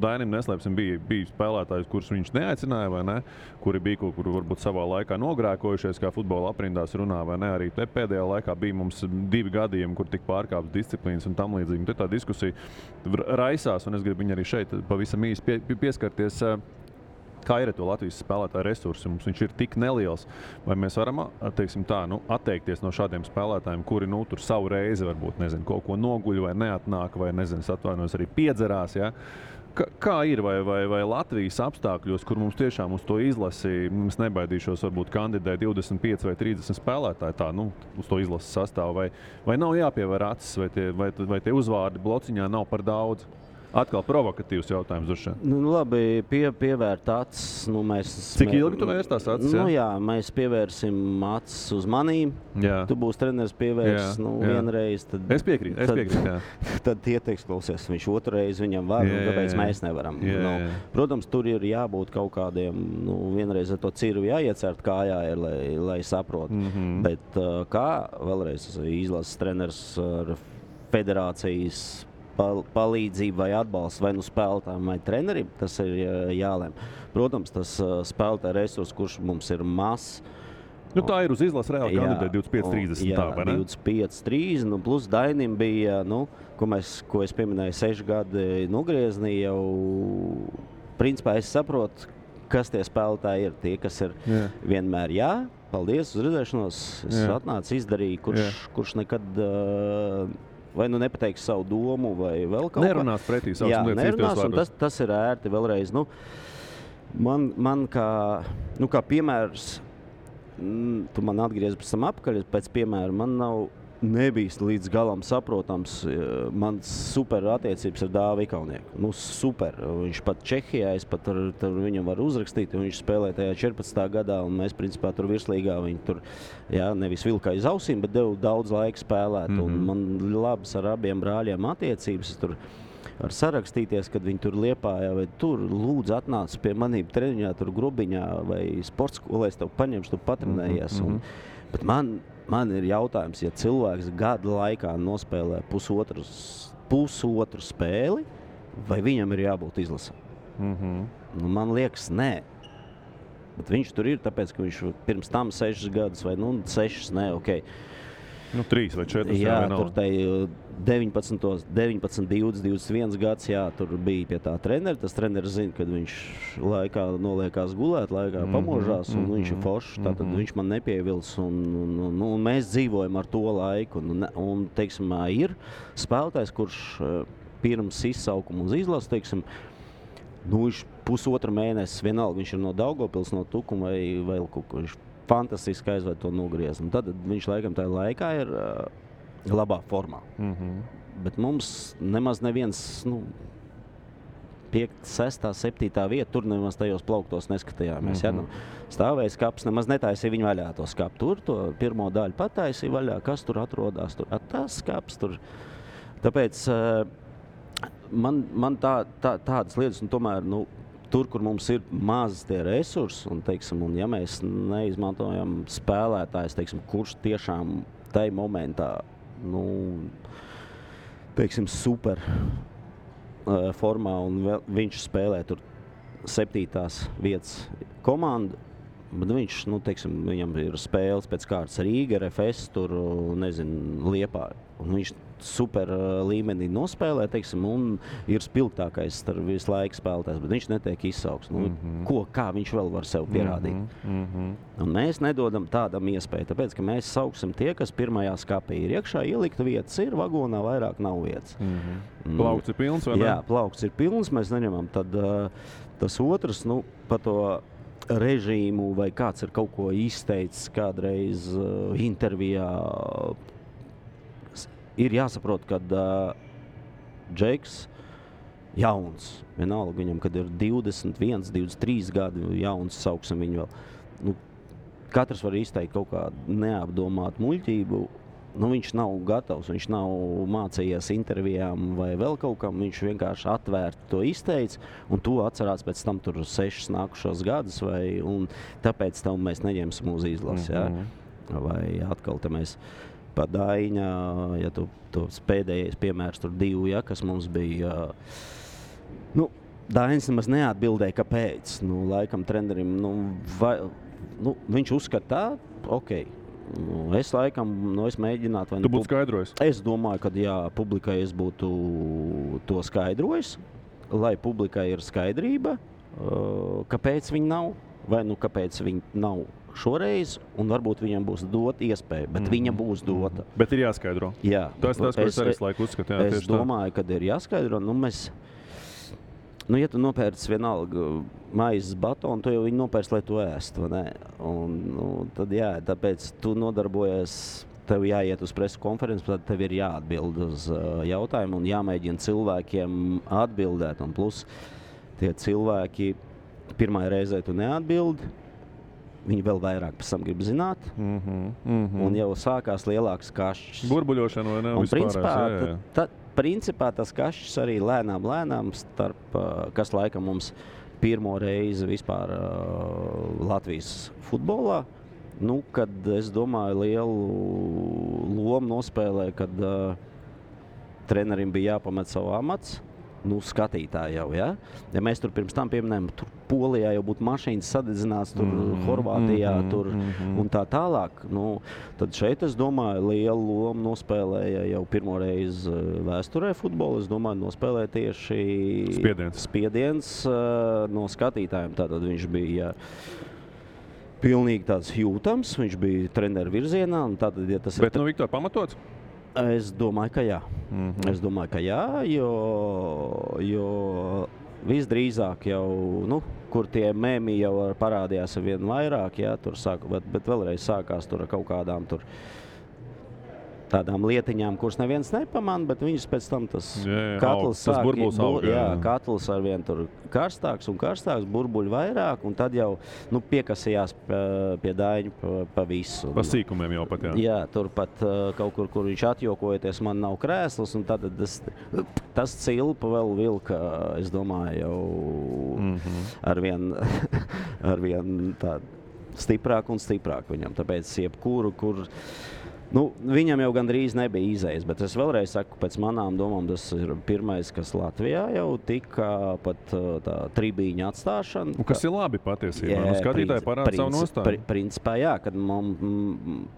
Dainim neslēpsim, bija spēlētājs, kurus viņš neaicināja, vai ne? Kuri bija kaut kur varbūt savā laikā nogrēkojušies, kā futbola aprindās runā, vai ne? Arī te pēdējā laikā bija mums 2 gadījumi, kur tika pārkāptas disciplīnas un tam līdzīgi. Te tā diskusija raisās, un es gribu viņu arī šeit pavisam īsti pieskarties. Kā ir to Latvijas spēlētāju resursi? Mums viņš ir tik neliels. Vai mēs varam, teiksim tā, atteikties no šādiem spēlētājiem, kuri tur savu reizi varbūt, nezinu, kaut ko noguļ vai neatnāk, vai, nezinu, atvainojas arī piedzerās, ja? Kā ir, vai Latvijas apstākļos, kur mums tiešām uz to izlasi, mums nebaidīšos, varbūt kandidē 25 vai 30 spēlētāji tā, uz to izlases sastāvu, vai nav jāpievēr acis, vai tie uzvārdi blociņā nav par daudz? Atkal provokatīvs jautājums uz šeit. Labi, pievērt acis. Cik ilgi tu vērst tās acis? Jā, mēs pievērsim acis uz manīm. Jā. Tu būsi treneris pievērs vienreiz. Tad, es piekrītu, jā. Tad tie teiks, klausies, viņš otrais viņam var, kāpēc mēs nevaram. Protams, tur ir jābūt kaut kādiem, vienreiz ar to cirvi jāiecert kājā, lai saprot. Bet kā vēlreiz izlases treneris ar federācijas palīdzību vai atbalstu vai spēlētājiem vai trenerim, tas ir jālem. Protams, tas spēlētāja resurs, kurš mums ir mazs. Tā ir uz izlases reāli kandidē 25-30. Jā, 25-30, plus Dainim bija, ko es pieminēju, 6 gadi nogriezni jau, principā es saprotu, kas tie spēlētāji ir. Tie, kas ir vienmēr paldies, uz redzēšanos, es atnācu, izdarīju, kurš nekad vai nepateiks savu domu, vai vēl kaut ko. Nerunās pretī savas lietas. Nerunās, un tas ir ērti vēlreiz. Man kā piemērs, tu man atgriezi pēc tam apkaļ, pēc piemēra, man nebija līdz galam saprotams. Man super attiecības ar Dāvi Ikaunieki. Super. Viņš pat Čehijā, es pat tur viņam var uzrakstīt, un viņš spēlēja tajā 14. gadā, un mēs principā tur virslīgā viņu tur, nevis vilka aiz ausīm, bet devu daudz laika spēlēt. Un man labas ar abiem brāļiem attiecības. Es tur var sarakstīties, kad viņi tur Liepājā vai tur lūdzu atnāc pie manīm treniņā, tur Grubiņā vai sports skolē, es tev paņemšu, tu patrenējies. Bet man ir jautājums, ja cilvēks gada laikā nospēlē pusotru spēli, vai viņam ir jābūt izlasē? Man liekas, nē. Bet viņš tur ir, tāpēc, ka viņš pirms tam 6 gadus vai 6, 3 vai 4. Jā, tur 19, 20, 21 gads, tur bija pie tā trenera. Tas treneris zina, kad viņš laikā noliekās gulēt, laikā pamožās, un viņš ir foršs, tātad viņš man nepievils, un mēs dzīvojam ar to laiku. Un teiksim, ir spēlētājs, kurš pirms izsaukuma uz izlases, teiksim, viņš pusotra mēnesis, vienalga, viņš ir no Daugavpils, no Tukuma vai vēl kaut ko, viņš fantastiski aizved to nogrieznu. Tad viņš laikam tajā laikā ir labā formā. Bet mums nemaz neviens, 5, 6, 7 vieta, tur nemaz tajos plauktos neskatījāmies. Ja? Nu, stāvēja skapis, nemaz netaisīja viņu vaļā to skapu. Tur to pirmo daļu pataisīja vaļā, kas tur atrodas, tur tas skapis. Tur. Tāpēc man tādas lietas, un tomēr, nu, tur, kur mums ir maz tie resursi, un, teiksim, un ja mēs neizmantojam spēlētājs, teiksim, kurš tiešām tai momentā, nu, teiksim, super formā, un viņš spēlē tur 7. vietas komandu, bet viņš, nu, teiksim, viņam ir spēles pēc kārtas Rīga, RFS, tur, nezinu, Liepāja, un viņš super līmenī nospēlē, teiksim, un ir spilgtākais starp visu laiku spēlētājs, bet viņš netiek izsauks. Nu, kā viņš vēl var sev pierādīt? Un mēs nedodam tādam iespēju, tāpēc, ka mēs sauksim tie, kas pirmajā skapī ir iekšā, ielikta vietas ir, vagonā vairāk nav vietas. Plaukts ir pilns, vai ne? Jā, plaukts ir pilns, mēs neņemam. Tad tas otrs, nu, pa to režīmu, vai kāds ir kaut ko izteicis kādreiz intervijā, ir jāsaprot, ka Džeks jauns, vienalga viņam, kad ir 21, 23 gadi jauns, sauksim viņu vēl. Nu, katrs var izteikt kaut kādu neapdomātu muļķību. Nu, viņš nav gatavs, viņš nav mācījies intervijām vai vēl kaut kam, viņš vienkārši atvērti to izteica, un to atcerās pēc tam tur 6 nākušos gadus, un tāpēc tam mēs neņemsim uz izlasi. Ja? Vai atkal te mēs pa Daiņa, ja tos pēdējais piemērs tur 2, ja, kas mums bija, nu, Daiņas nemaz neatbildēja, kāpēc. Nu, laikam trenerim, viņš uzskata tā, okei. Es laikam, es mēģinātu... Tu būtu skaidrojis? Es domāju, ka jā, publikai es būtu to skaidrojis, lai publikai ir skaidrība, kāpēc viņi nav, vai nu kāpēc viņi nav šoreiz, un varbūt viņam būs dota iespēja, bet viņa būs dota. Bet ir jāskaidro. Jā. Tas, ko es arī laiku uzskatu. Jā, es domāju, ka ir jāskaidro. Ja tu nopērc vienalga maizes batonu, tu jau viņu nopērc, lai tu ēstu, vai ne? Un tad jā, tāpēc tu nodarbojies, tev jāiet uz presu konferenci, tad tev ir jāatbild uz jautājumu un jāmēģina cilvēkiem atbildēt. Un plus tie cilvēki pirmā reizē tu neatbildi, viņi vēl vairāk pēc tam grib zināt, un jau sākās lielāks kašķis. Burbuļošana vai ne? Un principā tas kašķis arī lēnām starp, kas laikam mums pirmo reizi vispār Latvijas futbolā, nu, kad es domāju lielu lomu nospēlē, kad trenerim bija jāpamet savu amats, nu, skatītāji jau, ja? Ja mēs tur pirms tam pieminējam, tur Polijā jau būtu mašīnas sadedzināts, tur Horvātijā, tur un tā tālāk, nu, tad šeit, es domāju, lielu lomu nospēlēja jau pirmo reizi vēsturē futbolu, es domāju, nospēlēja tieši spiediens no skatītājiem, tātad viņš bija pilnīgi tāds jūtams, viņš bija treneru virzienā, un tātad, ja tas Bet, Viktor, pamatots? Es domāju, ka jā. Es domāju, ka jā, jo visdrīzāk jau, nu, kur tie memi jau parādījās vien vairāk, jā, tur bet vēlreiz sākās tur ar kaut kādām tur tādām lietiņām, kuras neviens nepamana, bet viņus pēc tam tas katls sāk, katls arvien tur karstāks un karstāks, burbuļi vairāk, un tad jau, nu, piekasījās pie Daiņu pa visu. Pa sīkumiem jau pat, jā. Jā, tur pat kaut kur viņš atjokojoties, man nav krēsls, un tad tas cilpa vēl vilka, es domāju, jau arvien tād stiprāk un stiprāk viņam, tāpēc jebkuru, kur nu, viņam jau gandrīz nebija izējas, bet es vēlreiz saku, pēc manām domām, tas ir pirmais, kas Latvijā jau tika pat tā tribīņa atstāšana. Un kas ir labi patiesībā? Nu, skatītāji parāda savu nostāju. Principā, jā, kad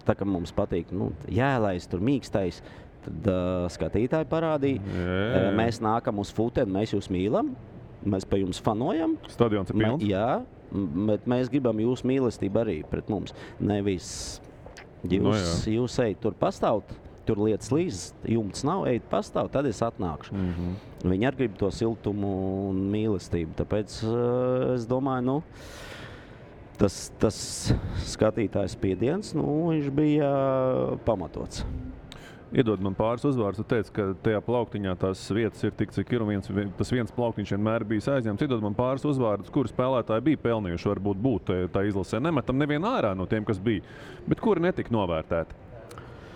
tā, ka mums patīk, nu, jēlais, tur mīkstais, tad skatītāji parādīja. Mēs nākam uz futeni, mēs jūs mīlam, mēs pa jums fanojam. Stadions ir pilns? Jā, bet mēs gribam jūs mīlestību arī pret mums. Nevis jūs ejat tur pastāvt, tur lietas līdz, jumts nav, ejat pastāvt, tad es atnākšu. Viņi arī grib to siltumu un mīlestību, tāpēc es domāju, nu, tas skatītājs spiediens, nu, viņš bija pamatots. Iedod man pāris uzvārdus, tu teici, ka tajā plauktiņā tās vietas ir tik, cik ir, un tas viens plauktiņš vienmēr bijis aizņemts. Iedod man pāris uzvārdus, kuri spēlētāji bija pelnījuši, varbūt būt tā izlasē. Nemetam nevienu ārā no tiem, kas bija, bet kuri netika novērtēti.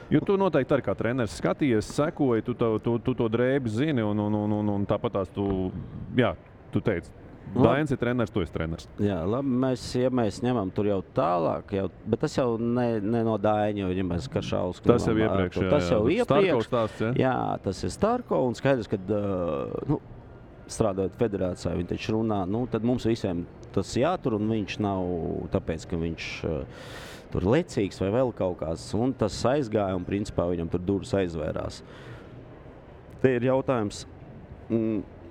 Jo tu noteikti arī kā treneris skatījies, sekoji, tu to drēbi zini, un tāpat tās tu teici. Dainis ir treneris, tu esi treneris. Jā, labi, mēs ņemam tur jau tālāk, bet tas jau ne no Daina, jo ņemēs Karšausku. Tas jau iepriekš, Tas jau iepriekš. Starko stāsts, ja? Jā, tas ir Starko, un skaidrs, ka strādājot federācijā, viņi taču runā, tad mums visiem tas jātur, un viņš nav tāpēc, ka viņš tur lecīgs vai vēl kaut kāds, un tas aizgāja, un principā viņam tur durvis aizvērās. Te ir jautājums,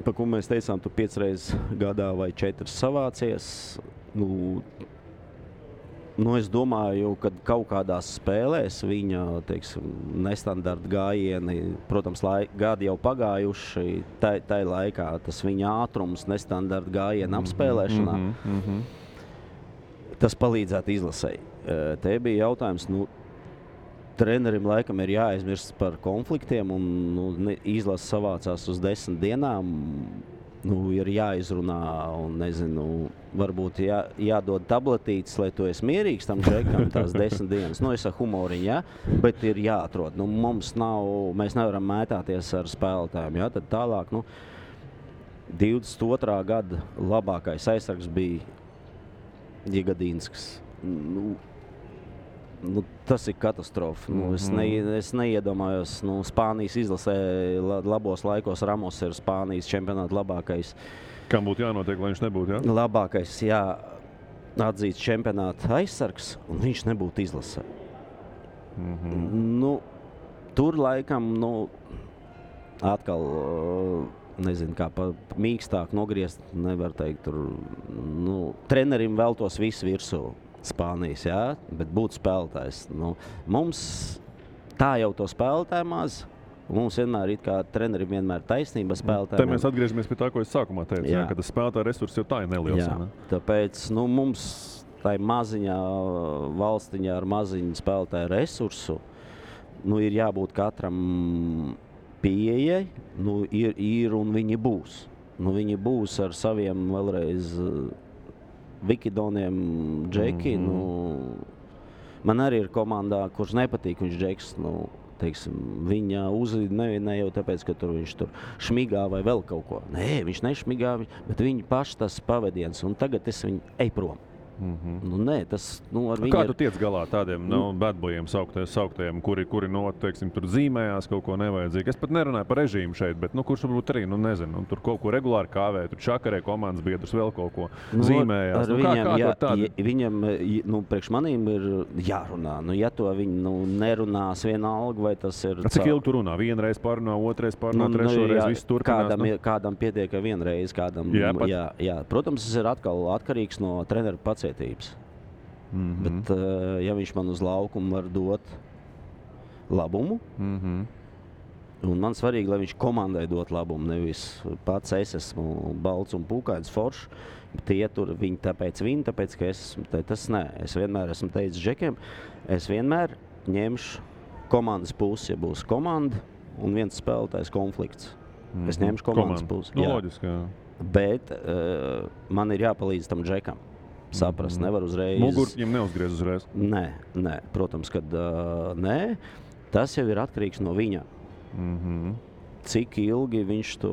par ko mēs teicām, tu 5 reizes gadā vai 4 savācies. Es domāju, ka kaut kādās spēlēs viņa, nestandarta gājieni, protams, gadi jau pagājuši, tai laikā tas viņa ātrums, nestandarta gājiena apspēlēšanā, tas palīdzētu izlasēji. Te bija jautājums, trenerim laikam ir jāaizmirst par konfliktiem, un izlase savācās uz 10 dienām. Ir jāizrunā, un nezinu, varbūt jādod tabletītes, lai tu esi mierīgs tam džekam tās 10 dienas. Es ar humoriņu, ja? Bet ir jāatrod. Mēs nevaram mētāties ar spēlētājiem. Ja? Tad tālāk, 22. gada labākais aizsargs bija Jigadīnskis. Tas ir katastrofa. Es neiedomājos, Spānijas izlasē labos laikos Ramos ir Spānijas čempionāta labākais. Kam būtu jānotiek, lai viņš nebūtu, jā? Labākais, atzīts čempionāta aizsargs, un viņš nebūtu izlasē. Tur laikam, atkal, nezinu, kā mīkstāk nogriezt, nevar teikt, tur, trenerim veltos visu virsū. Spānijas, jā, bet būtu spēlētājs. Mums tā jau to spēlētāju maz. Mums vienmēr ir kā trenerim vienmēr taisnība spēlētājiem. Te mēs atgriežamies pie tā, ko es sākumā teicu, ka tas spēlētāju resurss jau tā ir neliels. Jā, tāpēc mums tai maziņā valstiņā ar maziņu spēlētāju resursu ir jābūt katram pieejai, ir un viņi būs. Viņi būs ar saviem vēlreiz Vikidoniem džeki, man arī ir komandā, kurš nepatīk, viņš džeks, viņa uzlīd ne jau tāpēc, ka viņš tur šmigā vai vēl kaut ko. Nē, viņš nešmigā, bet viņi paši tas pavadiens, un tagad es viņu ej prom. Nē, tas ar viņu. Kā tu tiec galā tādiem badbojiem sauktajiem, kuri tur zīmējās kaut ko nevajadzīgu? Es pat nerunāju par režīmu šeit, bet kurš varbūt arī, nezinu, tur kaut ko regulāri kāvē, tur čakarē komandas biedrus vēl kaut ko zīmējās. Viņam, priekš manīm ir jārunā. Ja to viņi nerunās vienalga, vai tas ir. Cik ilgi tu runā? Vienreiz parunā, otrais parunā, trešoreiz viss turpinās? Kādam pietiek vienreiz, kādam. Jā. Protams, tas ir atkal atkarīgs no treneru pacietības. Bet, ja viņš man uz laukumu var dot labumu, un man svarīgi, lai viņš komandai dot labumu, nevis pats es esmu balts un pūkains foršs, bet tāpēc, ka tas nē. Es vienmēr esmu teicis džekiem, es vienmēr ņemšu komandas pusi, ja būs komanda un viens spēlētājs konflikts. Es ņemšu komandas pusi. Loģiski, jā. Bet man ir jāpalīdz tam džekam. Saprast, nevar uzreiz. Mugur viņam neuzgriez uzreiz? Nē, protams, kad nē. Tas jau ir atkarīgs no viņa. Cik ilgi viņš to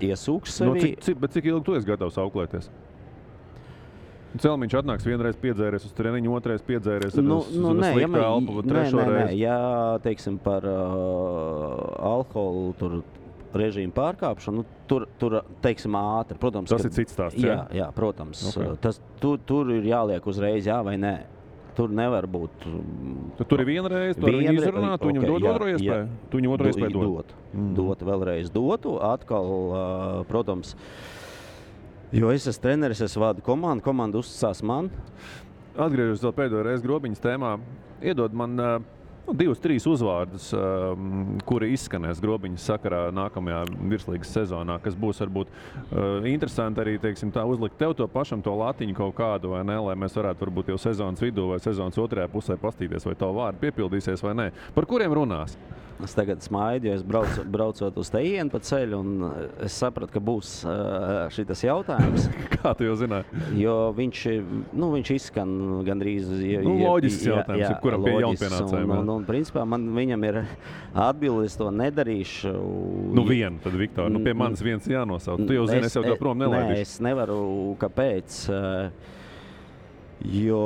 iesūks sevi. Bet cik ilgi tu esi gatavs auklēties? Celmiņš atnāks vienreiz piedzēries uz treniņu, otrais piedzēries uz sliktu elpu, trešo reizi. Ja, teiksim, par alkoholu tur režīmu pārkāpšanu, tur teiksim, ātri. Protams, tas ir cits stāsts, jā, protams. Okay. Tur ir jāliek uzreiz jā vai nē. Tur nevar būt. Tur ir vienreiz, tu viņu izrunā, tu viņam dod otro iespēju? Tu viņu otro iespēju dod? Dot, vēlreiz dotu. Atkal, protams, jo es esmu treneris, es vadu komandu, komanda uzticās man. Atgriežos vēl pēdējo reizi Grobiņas tēmā. Iedod man 2-3 uzvārdus, kuri izskanēs Grobiņas sakarā nākamajā virslīgas sezonā, kas būs varbūt interesanti arī, teiksim, tā uzlikt tev to pašam to latiņu kaut kādu, vai ne, lai mēs varētu varbūt jau sezonas vidū vai sezonas otrajā pusē pastīties, vai tavu vārdu piepildīsies vai nē. Par kuriem runās? Es tagad smaidu, jo es braucot uz tejienu pa ceļu, un es sapratu, ka būs šitas jautājums. Kā tu jau zināji? Jo viņš izskan gandrīz... Loģisks jautājums, kuram pie jaunpienācējiem. Un principā viņam ir atbildi, es to nedarīšu. Vienu, tad Viktor, pie manis viens jānosauc. Tu jau zini, es jau to prom nelaidīšu. Nē, es nevaru, kāpēc, jo...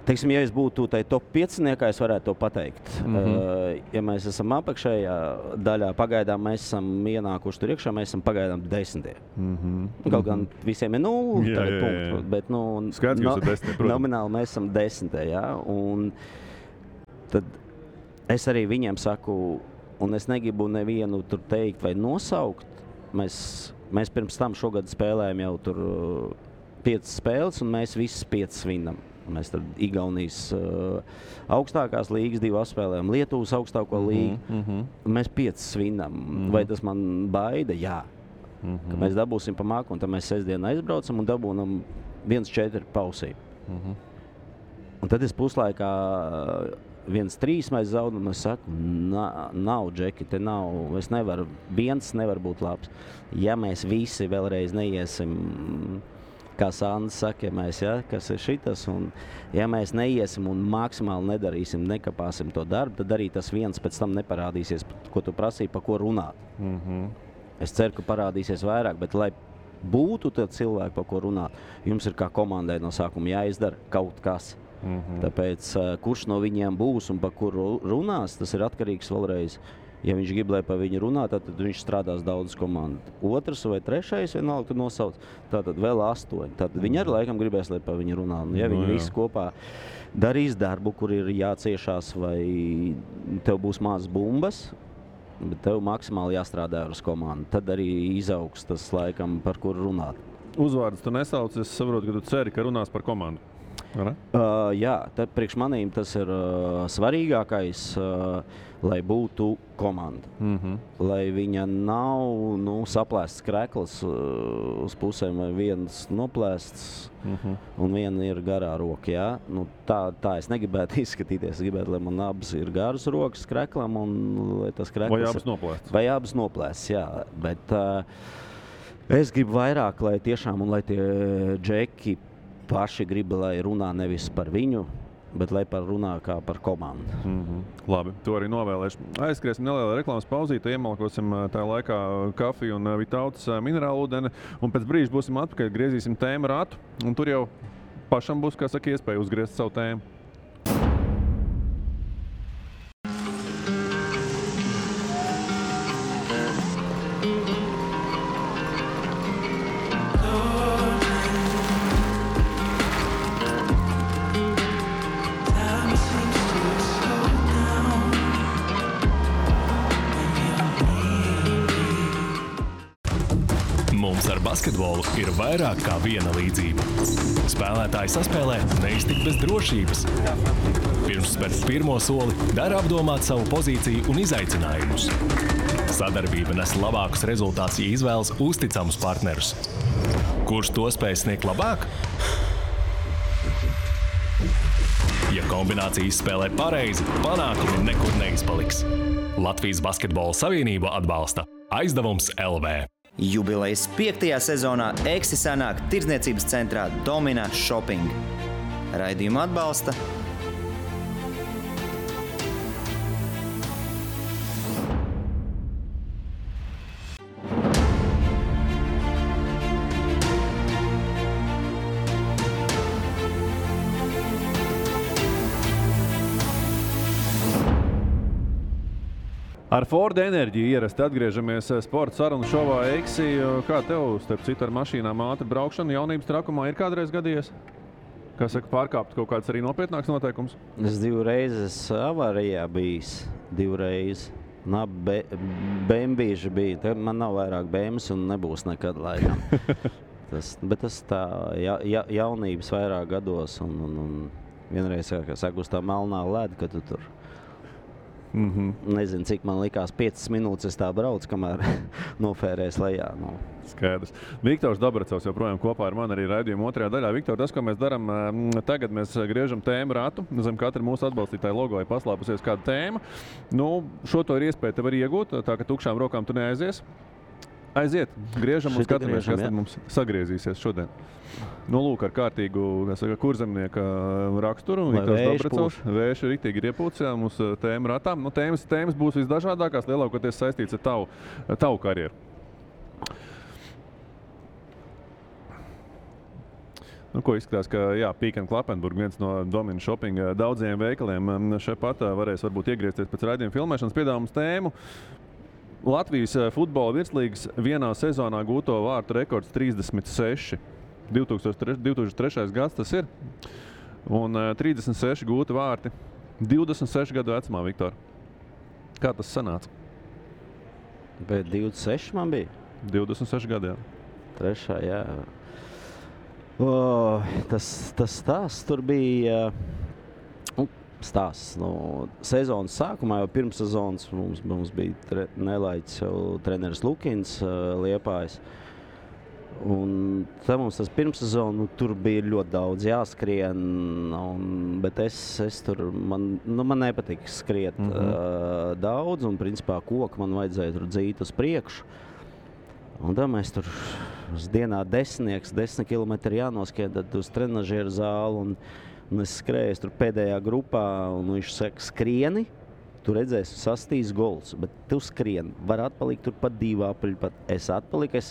Teiksim, ja es būtu tai top 5-niekā, es varētu to pateikt. Ja mēs esam apakšējā daļā, pagaidām mēs esam ienākuši tur iekšā, mēs esam pagaidām 10. Kaut gan visiem ir 0 punktu, bet Skaidrs, ka jūs ir 10, nomināli mēs esam 10. Ja? Un tad es arī viņiem saku, un es negribu nevienu tur teikt vai nosaukt. Mēs pirms tam šogad spēlējam jau tur 5 spēles, un mēs visas 5 svinam. Mēs tad Igaunijas augstākās līgas 2 apspēlējam, Lietuvas augstāko līgu. Mēs 5 svinam. Vai tas man baida? Jā. Ka mēs dabūsim pa māku, un tad mēs sestdien aizbraucam un dabūnam 1-4 pausī. Un tad es puslaikā 1-3 mēs zaudam, un es saku, nav, Džeki, te nav, es nevaru, viens nevar būt labs. Ja mēs visi vēlreiz neiesim... Kā Sandis saka, kas ir šitas, un ja mēs neiesim un maksimāli nedarīsim, nekapāsim to darbu, tad arī tas viens pēc tam neparādīsies, ko tu prasīji, pa ko runāt. Es ceru, ka parādīsies vairāk, bet lai būtu tad cilvēki, pa ko runāt, jums ir kā komandai no sākuma jāizdara kaut kas. Tāpēc, kurš no viņiem būs un pa kuru runās, tas ir atkarīgs vēlreiz. Ja viņš grib, lai pa viņu runā, tad viņš strādās daudz komandu. Otrs vai trešais vienalga, tu nosauc, tātad vēl 8. Tad viņi arī laikam gribēs, lai pa viņu runā. Ja viņi visi kopā darīs darbu, kur ir jāciešās, vai tev būs mazas bumbas, bet tev maksimāli jāstrādā uz komandu. Tad arī izaugs tas laikam, par kuru runāt. Uzvārdus tu nesauc, es saprotu, ka tu ceri, ka runās par komandu. Jā, tad priekš manīm tas ir svarīgākais, lai būtu komanda. Lai viņa nav saplēsts krekls uz pusēm, vai viens noplēsts un viena ir garā roka. Ja? Tā es negribētu izskatīties. Es gribētu, lai man abas ir garas rokas kreklam un lai tas krekls... Vai abas noplēsts. Vai abas noplēsts, jā. Bet es gribu vairāk, lai tiešām un lai tie džeki paši grib, lai runā nevis par viņu, bet lai runā kā par komandu. Labi, to arī novēlēšu. Aizskriesim nelielu reklāmas pauzīti, iemalkosim tajā laikā kafiju un Vitautas minerālu ūdeni, un pēc brīža būsim atpakaļ, griezīsim tēmu ratu, un tur jau pašam būs, kā saka, iespēja uzgriezt savu tēmu. Basketbolu ir vairāk kā viena līdzība. Spēlētāji saspēlē neiztikt bez drošības. Pirms spērt pirmo soli, dara apdomāt savu pozīciju un izaicinājumus. Sadarbība nes labākus rezultātus, ja izvēlas uzticamus partnerus. Kurš to spēj sniegt labāk? Ja kombinācijas spēlē pareizi, panākumi nekur neizpaliks. Latvijas Basketbola Savienība atbalsta Aizdevums LV. Jubilejas 5. sezonā Eksi sanāk tirdzniecības centrā Domina Shopping. Raidījumu atbalsta Ar Ford enerģiju ierasti atgriežamies sporta sarunu šovā Eksi. Kā tev, starp citu, ar mašīnām ātri braukšana jaunības trakumā ir kādreiz gadījies? Kā saka, pārkāpt kaut kāds arī nopietnāks noteikums? Es 2 reizes avārijā bijis. 2 reizes. Bembīži bija. Te man nav vairāk bēmas un nebūs nekad laikam. Bet tas tā jaunības vairāk gados un vienreiz, kā saka, uz tā melnā leda, ka tu tur Nezinu, cik man likās 5 minūtes es tā braucu, kamēr nofērēs lejā. Nu. Skaidrs. Viktors Dabracovs joprojām kopā ar mani arī raidījuma otrajā daļā. Viktor, tas, ko mēs darām, tagad mēs griežam tēmu ratu. Zem katra mūsu atbalstītāja logo ir paslēpusies kāda tēma. Nu, šo to ir iespēja tev arī iegūt, tā ka tukšām rokām tu neaizies. Aiziet, griežam un skatāmies, kas tad mums sagriezīsies šodien. Nu, lūk, ar kārtīgu, kurzemnieka raksturu. Viktors Dabracovs. Vējš ir riktīgi iepūts, jā, mums tēma ratām. Nu, tēmas būs visdažādākās, lielākoties saistīts ar tavu karjeru. Nu, ko izskatās, ka jā, Peek & Klappenburg, viens no Domina Shopping daudziem veikaliem, šeit pat varēs varbūt iegriezties pēc raidījuma filmēšanas. Piedāvājums tēmu. Latvijas futbola virslīgas vienā sezonā gūto vārtu rekords 36. 2003. gads tas ir. Un 36 gūti vārti 26 gadu vecumā, Viktor. Kā tas sanāca? Bet 26 man bija? 26 gadu, jā. Trešā, jā. Tas stāsts tur bija stāsts. No sezonas sākumā, jau pirms sezonas mums bija nelaiķis jau treneris Lukins Liepājs. Un tad mums tas pirmssezonu, tur bija ļoti daudz jāskrien, bet es tur, man nepatika skriet daudz, un principā koku man vajadzēja tur dzīt uz priekšu. Un tad mēs tur uz dienā 10 kilometri jānoskrien, tad uz trenažieru zāli, un es skrēju tur pēdējā grupā, un viņš saka, skrieni, tu redzēsi, sastīs gols, bet tu skrieni, var atpalikt tur pat 2 apaļi, pat es atpaliku,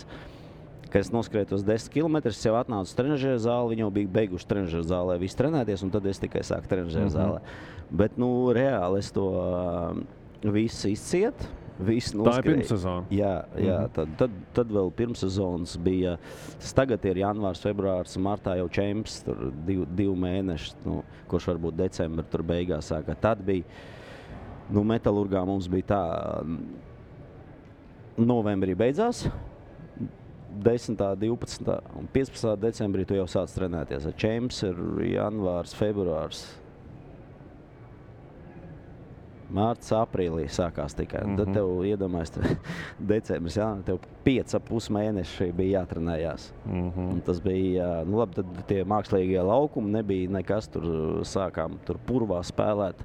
kad es noskrēju tos 10 kilometrus, es jau atnācu uz trenažieru zāli, viņi jau bija beiguši trenažieru zālē, visi trenēties, un tad es tikai sāku trenažieru zālē. Bet, nu, reāli es to visu izciet. Tā ir pirmssezona. Jā, tad vēl pirmssezonas bija. Tas tagad ir janvārs, februārs, martā jau čemps, tur 2 mēneši, kurš varbūt decembra tur beigās sākā. Tad bija, Metalurgā mums bija tā, novembrī beidzās, 10., 12. un 15. decembrī tu jau sāc trenēties. Čemps ir janvārs, februārs. Mārts, aprīlī sākās tikai. Tad tev iedomājas, decembris, jā, tev 5,5 mēneši bija jātrenējās. Un tas bija, labi, tad tie mākslīgie laukumi nebija nekas, tur sākām tur purvā spēlēt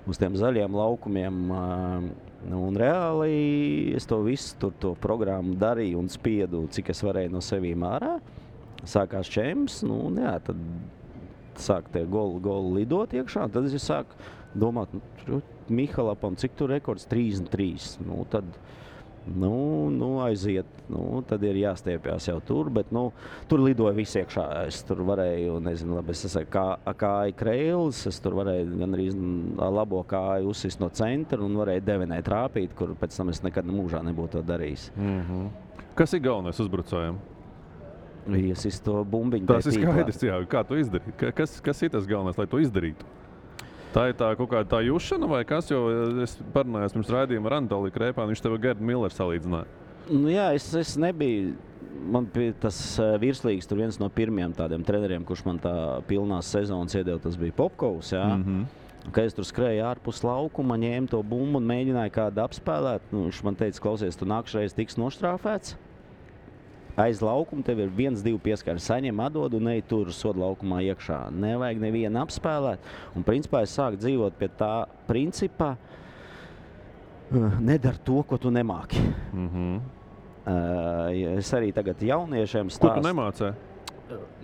uz tiem zaļiem laukumiem. Un reāli es to visu tur to programmu darīju un spiedu, cik es varēju no sevīm ārā. Sākās čemps, jā, tad sāk tie goli lidot iekšā, tad es sāku domāt, Mihalapam, cik tur rekords 33, tad, aiziet, tad ir jāstiepjās jau tur, bet, tur lidoja visi iekšā, es tur varēju, nezinu, labi, es esmu kāju kreilis, es tur varēju gan arī labo kāju uzsist no centra un varēju devenē trāpīt, kur pēc tam es nekad mūžā nebūtu to darījis. Kas ir galvenais uzbrucējiem? Iesist to bumbiņu. Tas ir skaidrs, jā, kā tu izdarīt? Kas ir tas galvenais, lai to izdarītu? Tā ir tā kaut kāda tā jušana vai kas, jo es parunājos pirms raidījuma ar Anatoliju Krēpānu, viņš tev Gerdu Milleru salīdzināja. Jā, es nebiju, man tas virslīgas tur viens no pirmiem tādiem treneriem, kurš man tā pilnās sezonas iedeva, tas bija Popkovs, jā. Kad es tur skrēju ārpus laukuma, ņēmu to bumbu un mēģināju kādu apspēlēt, viņš man teica, klausies, tu nākšreiz tiks noštrāfēts. Aiz laukuma tev ir 1-2 pieskari, saņem atdod un ej tur soda laukumā iekšā. Nevajag nevienu apspēlēt. Un principā es sāku dzīvot pie tā principa, nedar to, ko tu nemāki. Es arī tagad jauniešiem stāstu. Ko tu nemācē?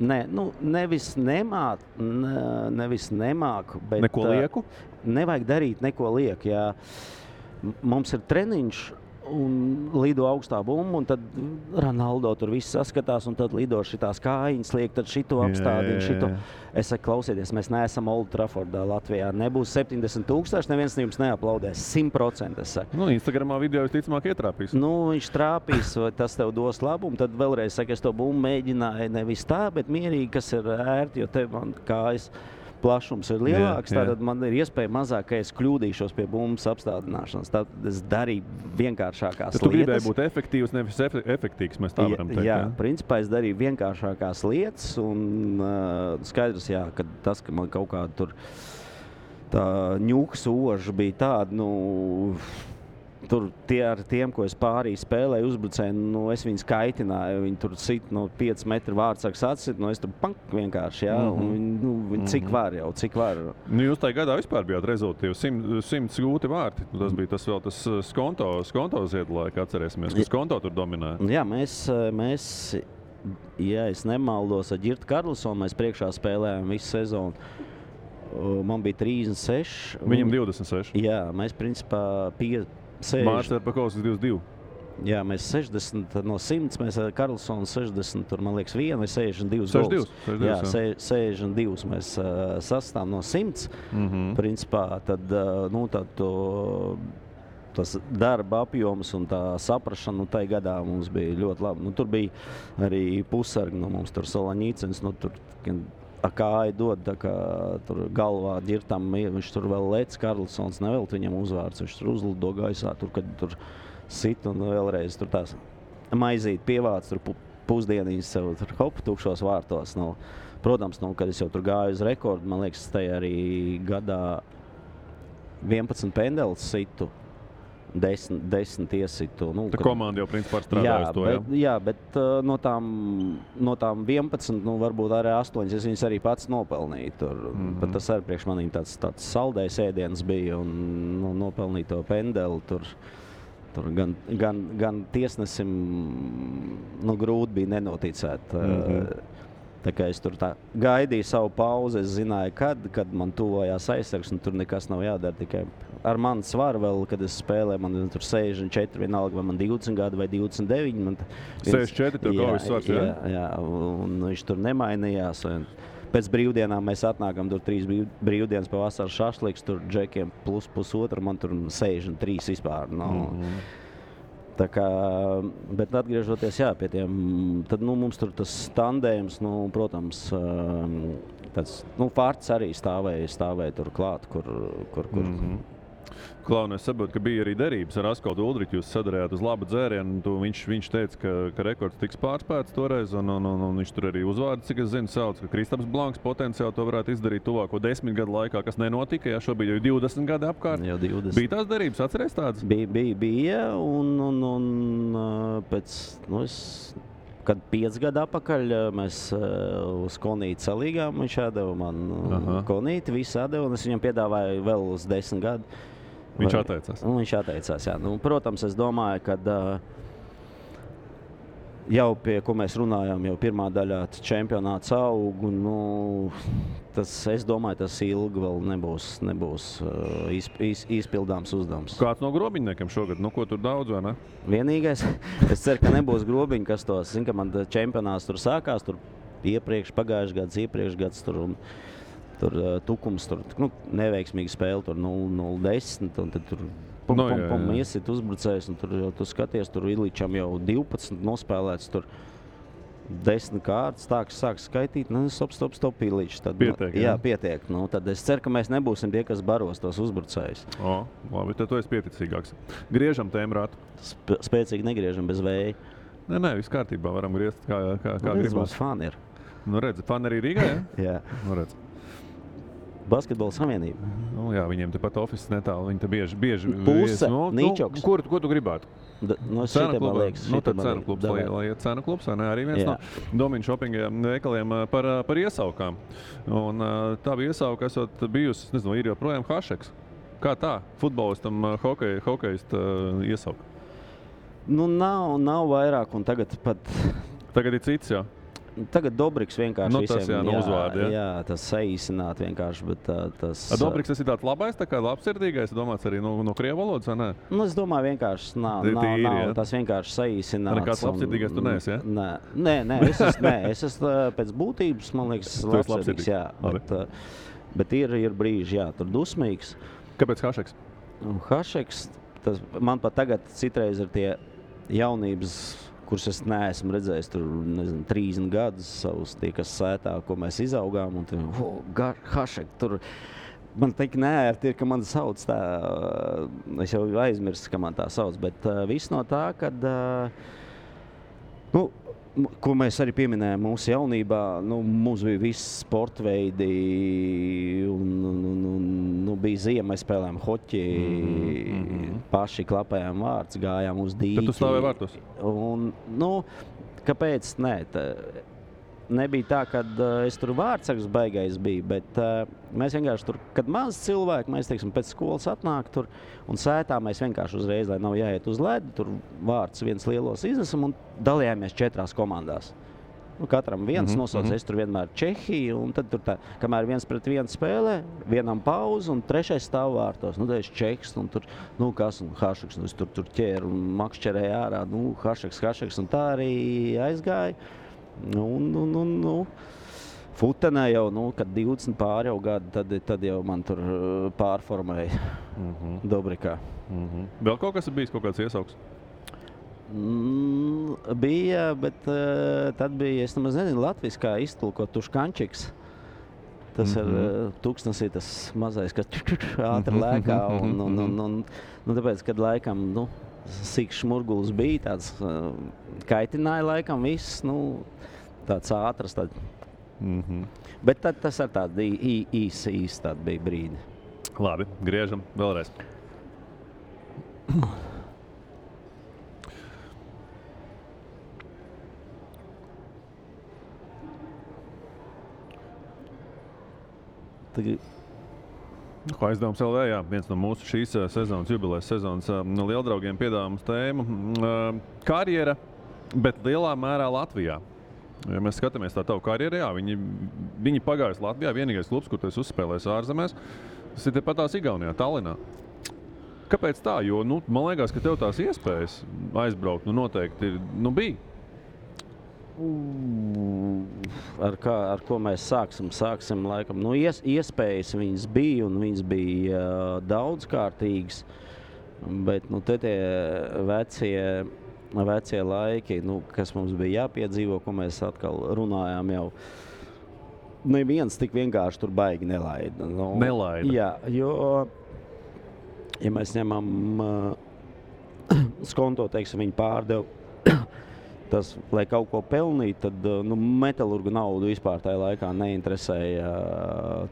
Nē, nevis nemāku, bet neko lieku? Nevajag darīt neko lieku, jā. Mums ir treniņš un lido augstā bumba, un tad Ronaldo tur viss saskatās, un tad lido šitās kājiņas liek, tad šito apstādina, šito. Es saku, klausieties, mēs neesam Old Traffordā Latvijā. Nebūs 70,000, neviens no jums neaplaudēs. 100%, es saku. Instagramā video visticamāk ietrāpīs. Viņš trāpīs, vai tas tev dos labumu, tad vēlreiz saka, es to bumbu mēģināju nevis tā, bet mierīgi, kas ir ērti, jo tev man kājas plašums ir lielāks, tātad man ir iespēja mazāk, ka es kļūdīšos pie bumbas apstādināšanas. Tātad es darīju vienkāršākās lietas. Tu gribēji būt efektīvs, nevis efektīgs, mēs tā varam teikt. Jā, principā es darīju vienkāršākās lietas un skaidrs, jā, ka tas, ka man kaut kāda tur tā ņuks oža bija tāda, nu, tur tie ar tiem, ko es pārī spēlēju uzbrucēju, nu, es viņus kaitināju, viņi tur sit, 5 metru vārdsargs atsit, es tur pank vienkārši, un cik var. Nu, jūs tajā gadā vispār bijāt rezultātīvi, 100 gūti vārti. Tas bija tas vēl tas skonto ziedlaika, atcerēsimies, ka skonto tur dominēja. Jā, mēs ja es nemaldos, ar Ģirtu Karlsonu mēs priekšā spēlējām visu sezonu. Man bija 36. Viņam 26. Jā, mēs principā 60. Mārcis Erpakovs 22. Jā, mēs 60 no 100, mēs ar Karlsonu 60, tur man liekas 1 vai 62 gols. 62, jā, 62 mēs sastāvam no 100. Principā tad, tas darba apjoms un tā saprašana, tai gadā mums bija ļoti labi. Tur bija arī pusargi, mums tur Solaņīcens, tur kāja dod, tā kā tur galvā Ģirtam, viņš tur vēl lec, Karlsons nevelt viņam uzvārds, viņš tur uzlido gaisā, kad tur sit un vēlreiz tur tās maizīt pievāc, tur pusdienīs sev tur hop, tukšos vārtos. Protams, kad es jau tur gāju uz rekordu, man liekas, tajā arī gadā 11 pendeles situ. 10 iesitu. Tā komanda jau principā strādājusi to, jā? Jā, bet no tām 11, varbūt arī 8, es viņas arī pats nopelnīju tur. Bet tas arī priekš manīm tāds saldējs ēdiens bija un nopelnīt to pendeli tur gan tiesnesim grūti bija nenoticēt. Tā kā es tur gaidīju savu pauzi, es zināju, kad man tuvojās aizsargs, un tur nekas nav jādara. Tikai ar mani svaru vēl, kad es spēlēju, man tur 64, vienalga, vai man 20 gadi vai 29. 64, tev kaujas svars, jā? Jā, un viņš tur nemainījās. Pēc brīvdienām mēs atnākam, tur 3 brīvdienas pa vasaras šašliks, tur džekiem plus pusotru, man tur 63 vispār. Tā kā, bet atgriežoties pie tiem, tad mums tur tas tandējums, protams, tāds, Fārts arī stāvēja tur klāt, kur. Klau, es saprotu, ka bija arī derības ar Askaldu Uldriķu, jūs sadarījāt uz labu dzērienu, viņš teica, ka rekords tiks pārspēts toreiz, un viņš tur arī uzvārdu, cik es zinu, sauc, ka Kristaps Blanks potenciāli to varētu izdarīt tuvāko 10 gadu laikā, kas nenotika, šobrīd jau 20 gadi apkārt. Jau 20. Bija tās derības, atceries tādas? Bija, un pēc, kad 5 gadu atpakaļ mēs uz Konīti salīgām, viņš atdeva man Konīti, visu atdeva, un es viņam piedāvāju vēl uz 10 gadu. Viņš atteicās. Viņš atteicās, jā. Protams, es domāju, ka jau pie, ko mēs runājām, jau pirmā daļā čempionāts aug, un es domāju, tas ilgi vēl nebūs izpildāms uzdevums. Kāds no grobiņniekiem šogad? Ko tur daudz, vai ne? Vienīgais, es ceru, ka nebūs grobiņi, kas tos, ka man čempionāts tur sākās, tur pagājušajā gads tur un tur tukums, tur neveiksmīga spēle, tur 0-10, un tad tur iesit uzbrucējs, un tur jau tu skaties, tur Iličam jau 12 nospēlēts, tur 10 kārtas, kas sāk skaitīt, stop, Iličs. Pietiek, jā? Jā, pietiek. Tad es ceru, ka mēs nebūsim tie, kas baros tos uzbrucējus. Labi, tad tu esi pieticīgāks. Griežam tēmrātu. Spēcīgi negriežam bez vēja. Nē, viss kārtībā, varam griezt kā gribas. Mums fani ir. Redzi, fani arī Rīgā, jā? Jā. Redzi. Basketbola savienība. Jā, viņiem tepat office netālu, viņi te bieži Puse, Nīčoks. Ko tu gribētu? Cena klubs, tad cena klubs, lai iet cena klubs, vai ne? Arī viens no Domina Shoppinga veikaliem par iesaukām. Un tā bija iesauka, esot bijusi, nezinu, ir joprojām Hašeks. Kā tā? Futbolistam hokejista iesauka? Nav vairāk, un tagad ir cits, jā. Tagad Dobriks vienkārši visiem uzvārdi, jā, tas saīsināt vienkārši, bet tas... Dobriks tas ir tāds labais, tā kā labsirdīgais, domāts arī no krievu valodas, vai ne? Es domāju, vienkārši nav tas vienkārši saīsināts. Nekāds labsirdīgais tu neesi, ja? Nē, es esmu pēc būtības, man liekas, labsirdīgs, jā. Bet ir brīži, jā, tur dusmīgs. Kāpēc Hašeks? Hašeks, man pat tagad citreiz ir tie jaunības, kurus es neesmu redzējis tur, 30 gadus savus, tie, kas sētā, ko mēs izaugām, un tur, Hašek, tur, man teikt neērti ir, ka man sauc tā, es jau aizmirstu, ka man tā sauc, bet viss no tā, kad, ko mēs arī pieminējām mūsu jaunībā, mums bija visi sportveidi, un bija ziema, mēs spēlējām hoķi, paši klapējām vārds, gājām uz dīķi. Tad tu stāvēji vārtos? Un, kāpēc? Nē, nebija tā, ka es tur vārdsargs baigais biju, bet mēs vienkārši tur, kad maz cilvēki, mēs, teiksim, pēc skolas atnāk tur un sētā mēs vienkārši uzreiz, lai nav jāiet uz ledi, tur vārds viens lielos iznesam un dalījāmies 4 komandās. Katram viens nosauc, es tur vienmēr Čehiju, un tad tur tā, kamēr 1-1 spēlē, vienam pauze un 3. stāv vārtos. Tad es Čehs, un tur, kas, un Hašeks, es tur ķēru un makšķerēju ārā, Hašeks, un tā arī aizgāja. Futenē jau, kad 20 pāri jau gadu, tad jau man tur pārformēja Dobrikā. Vēl kaut kas ir bijis, kaut kāds iesauks? Bija, bet tad bija, es nemaz nezinu, latviskā iztulkot tuškančiks. Tas ir tūkstnesī tas mazais, kas ātri lēkā, un tāpēc, kad laikam, sīks šmurgulis bija, tāds kaitināja laikam viss, tāds ātrs. Bet tad tas ar tādu īsi tādu bija brīdi. Labi, griežam vēlreiz. Ko aizdevums LV, jā, viens no mūsu šīs sezonas, jubilejas sezonas lieldraugiem piedāvā mums tēmu karjera, bet lielā mērā Latvijā. Ja mēs skatāmies tā tavu karjeru, jā, viņi pagājuši Latvijā, vienīgais klubs, kur tu esi uzspēlējis ārzemēs, tas ir tepatās Igaunijā, Tallinā. Kāpēc tā? Jo, man liekas, ka tev tās iespējas aizbraukt, noteikti bija. Ar ko mēs sāksim laikam. Iespējas viņas bija, un viņas bija daudzkārtīgas, bet te tie vecie laiki, kas mums bija jāpiedzīvo, ko mēs atkal runājām jau, neviens tik vienkārši tur baigi nelaida. Nelaida? Jā, jo, ja mēs ņemam skonto, teiksim, viņi pārdeva, tas, lai kaut ko pelnītu, tad metalurgu naudu vispār tajā laikā neinteresēja.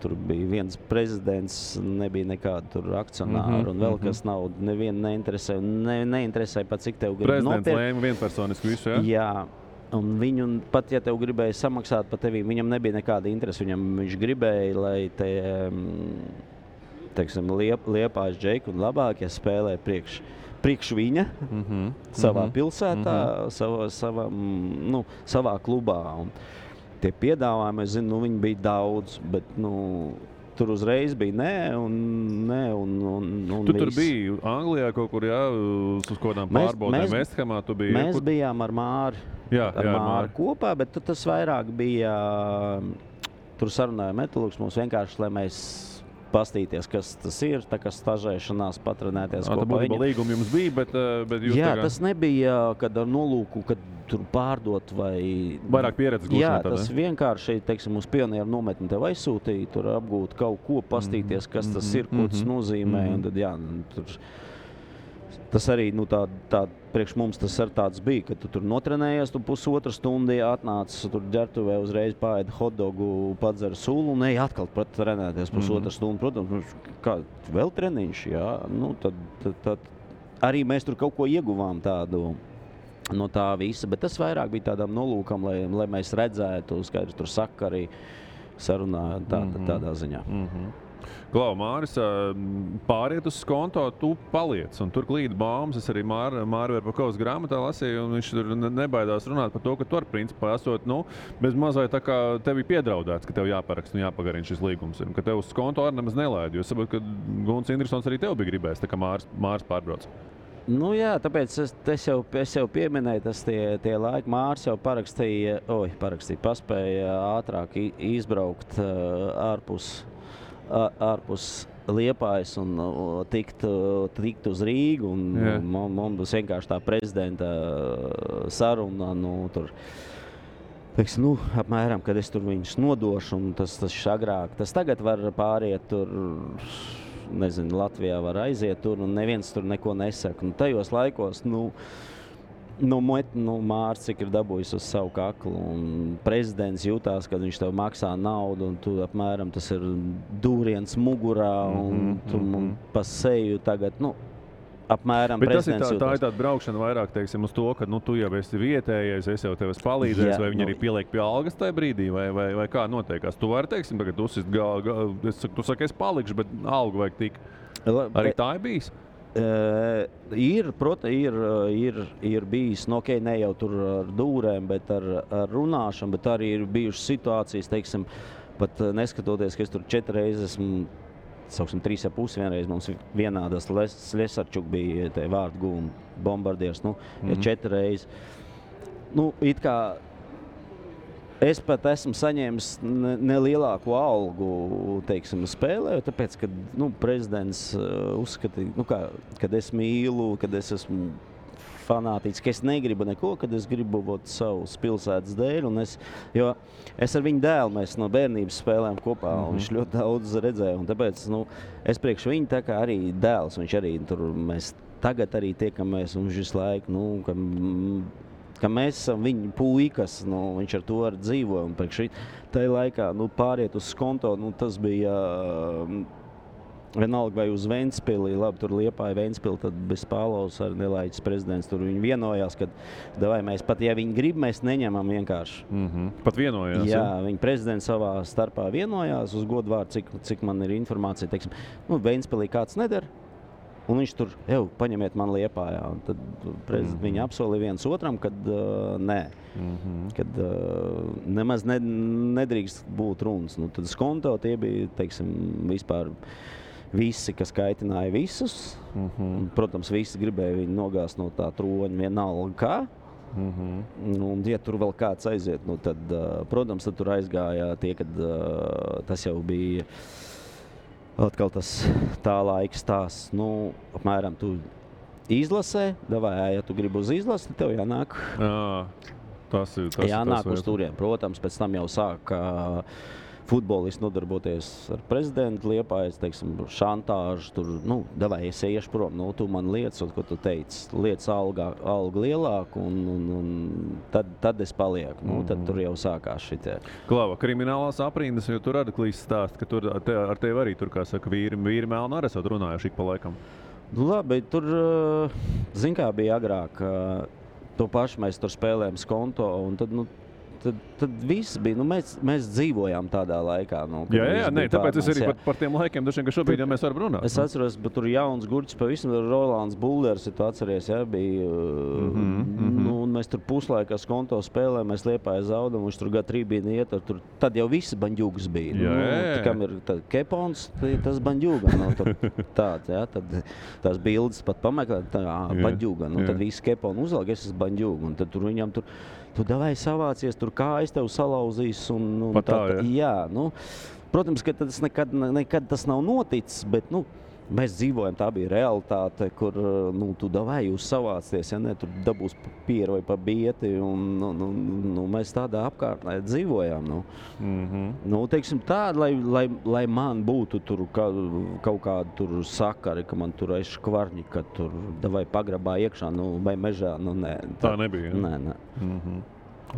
Tur bija viens prezidents, nebija nekāda tur akcionāra un vēl kas naudu. Nevienu neinteresēja. Neinteresēja pat, cik tev grib prezidents lēma vienpersoniski visu, jā? Jā. Un viņu, pat ja tev gribēja samaksāt par tevi, viņam nebija nekāda interese. Viņš gribēja, lai te, teiksim, Liepājas Džeku un labākie spēlē priekš viņa savā pilsētā, savā klubā. Un tie piedāvājumi, es zinu, viņi bija daudz, bet tur uzreiz bija nē. Tu tur biji Anglijā kaut kur, jā, uz kodām pārbaudēm Vesthamā tu biji? Mēs bijām ar Māri. Ar Māri kopā, bet tas vairāk bija, tur sarunāja metalurgs mums vienkārši, lai mēs pastīties, kas tas ir, tā kā stažēšanās, patrenēties kopā viņam. Tā līguma jums bija, bet jūs jā, tas nebija, kad ar nolūku, kad tur pārdot vai... Vairāk pieredzes gūšanā. Jā, tas vienkārši, teiksim, uz pionieru nometni tev aizsūtīja, tur apgūt kaut ko, pastīties, kas tas ir, ko tas nozīmē, un tad, jā, tur... Tas arī, tā priekš mums tas ar tāds bija, ka tu tur notrenējies, tu pusotru stundu atnācis, tur ģertuvē uzreiz paēdi hotdogu, padzer sulu un ej atkal trenēties pusotru stundu. Protams, kā vēl treniņš, jā, tad arī mēs tur kaut ko ieguvām tādu no tā visa, bet tas vairāk bija tādām nolūkam, lai mēs redzētu, skaidrs tur saka arī sarunā tādā ziņā. Klau, Māris, pāriet uz skonto, tu paliec, un tur klīd baumas. Es arī Māri Verpakovas grāmatā lasīju, un viņš tur nebaidās runāt par to, ka tu ar principā esot, bez mazai tā kā tevi piedraudēts, ka tev jāparaksta un jāpagarina šis līgums, un ka tev uz skonto arī nemaz nelaid, jo es saprotu, ka Gunts Indrisons arī tev bija gribējis, tā kā Māris pārbrauc. Jā, tāpēc es jau pieminēju, tas tie laiki. Māris jau paspēja ātrāk izbraukt ārpus Liepājas un tikt uz Rīgu. Mums vienkārši tā prezidenta saruna, tur, teiksim, apmēram, kad es tur viņus nodošu, un tas agrāk. Tas tagad var pāriet tur, nezinu, Latvijā var aiziet tur, un neviens tur neko nesaka. Tajos laikos, Mārcis, cik ir dabūjis uz savu kaklu, un prezidents jutās, kad viņš tev maksā naudu, un tu apmēram tas ir dūriens mugurā, un tu pa seju tagad, apmēram bet prezidents tā jutās. ir tāda braukšana vairāk, teiksim, uz to, ka tu jau esi vietējais, es jau tev esmu palīdzējis, vai viņi arī pieliek pie algas tajā brīdī, vai kā notiekās. Tu vari, teiksim, tagad tu saki, es palikšu, bet algu vajag tik. Arī tā ir bijis? Ir bijis, ne jau tur ar dūrēm, bet ar runāšanu, bet arī ir bijušas situācijas, teiksim, pat neskatoties, ka es tur 4 reizes esmu, sauksim 3,5 vienreiz, mums vienādas Lesarčuk bija te vārdu gūma bombardieris, 4 reizes. It kā es pat esmu saņēmis nelielāku algu, teiksim, spēlēju, tāpēc, ka prezidents uzskatīja, kad es mīlu, kad es esmu fanātiķis, ka es negribu neko, kad es gribu savus pilsētas dēļ, jo es ar viņu dēlu, mēs no bērnības spēlējām kopā, un viņš ļoti daudz redzēja, un tāpēc, es priekš viņu tā kā arī dēls, viņš arī tur, mēs tagad arī tiekamies, un viņš visu laiku, ka mēs esam viņa puikas, viņš ar to arī dzīvoja, un priekš tajā laikā, pāriet uz skonto, tas bija vienalga vai uz Ventspili, labi, tur Liepāja Ventspili, tad bez Pālaus ar Nelaiķis prezidents, tur viņi vienojās, ka mēs pat, ja viņi grib, mēs neņemam vienkārši. Pat vienojās? Jā, viņi prezidents savā starpā vienojās uz godvārdu, cik man ir informācija, teiksim, Ventspilī kāds nedara, un viņš tur, paņemiet man Liepājā. Un tad viņi apsolīja viens otram, kad nē, kad nemaz nedrīkst būt runas. Tad skonto tie bija, teiksim, vispār visi, kas kaitināja visus. Un, protams, visi gribēja viņu nogāzt no tā troņa vienalga kā. Un, ja tur vēl kāds aiziet, tad, protams, tad tur aizgāja tie, kad tas jau bija atkal tas tā laika stāsts, apmēram tu izlasē, ja tu gribi uz izlasi, tev jānāk. Jānāk uz turiem. Protams, pēc tam jau sāk futbolisti nodarboties ar prezidentu Liepājas, teiksim, šantāžu, tur, es iešu prom, tu man liec, ko tu teici, liec algu lielāku, un tad es palieku, tad tur jau sākās šitie. Klava, kriminālās aprindas, jo tur Adaklīs stāst, ka tur ar tevi arī, tur, kā saka, vīri melni arī esat runājuši ik pa laikam. Labi, tur, zin kā bija agrāk, to pašu mēs tur spēlējam skonto, un tad viss bija, mēs dzīvojām tādā laikā. Jā, tāpēc es arī par tiem laikiem, ka šobrīd jau mēs varam runāt. Es atceros, bet tur jauns gurķis pavisam, Rolands Bulders, tu atceries, bija, un mēs tur puslaikā skonto spēlējām, mēs Liepāja zaudam, viņš tur gadu trībīni iet, tad jau visi baņģūgas bija. Kam ir kepons, tas baņģūga, tāds, tad tās bildes pat pameklēt, baņģūga, tad visi keponi uzvalg, es esmu baņģūga, un tad tur viņam tur, tu davai savācies, tur kājas tev salauzīs, un jā, protams, ka tas nekad tas nav noticis, bet, mēs dzīvojam, tā bija realitāte, kur, tu davai jūs savācies, ja ne, tur dabūs pieru vai pa bieti, un mēs tādā apkārtnē dzīvojām, teiksim tā, lai man būtu tur kaut kādu tur sakari, ka man tur aiz škvarņi, ka tur davai pagrabā iekšā, vai mežā, nē. Tā nebija, ja? Nē.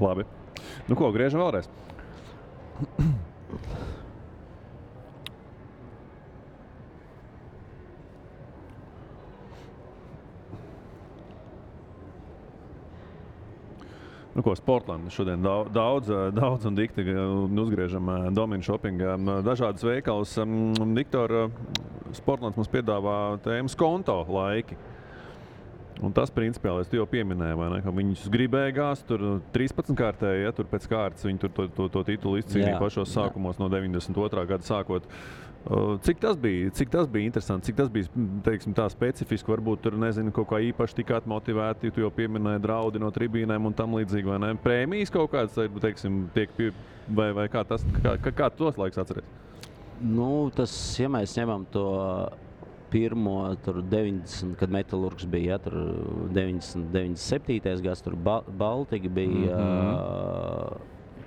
Labi. Ko, griežam vēlreiz? Sportland šodien daudz un dikti uzgriežam Domina Shoppingā. Dažādas veikals. Viktor, Sportlands mums piedāvā tēmu skonto laiki. Un tas principiāli, tu jau pieminēji, vai ne, ka viņus gribēja gāzt, tur 13 kārtēji, ja, tur pēc kārtas viņi tur to titulu izcīnīja pašos sākumos no 92. gada sākot. Cik tas bija interesanti, cik tas bija, teiksim, tā specifiski, varbūt tur, nezinu, kaut kā īpaši tikāt motivēti, tu jau pieminēji draudi no tribīnēm un tam līdzīgi, vai ne? Prēmijas kaut kāds, teiksim, tiek vai kā tas, kā tos laiks atceries? Tas, ja mēs ņemam to pirmo, tur 90, kad Metalurgs bija, tur 97. gads, tur Baltika bija,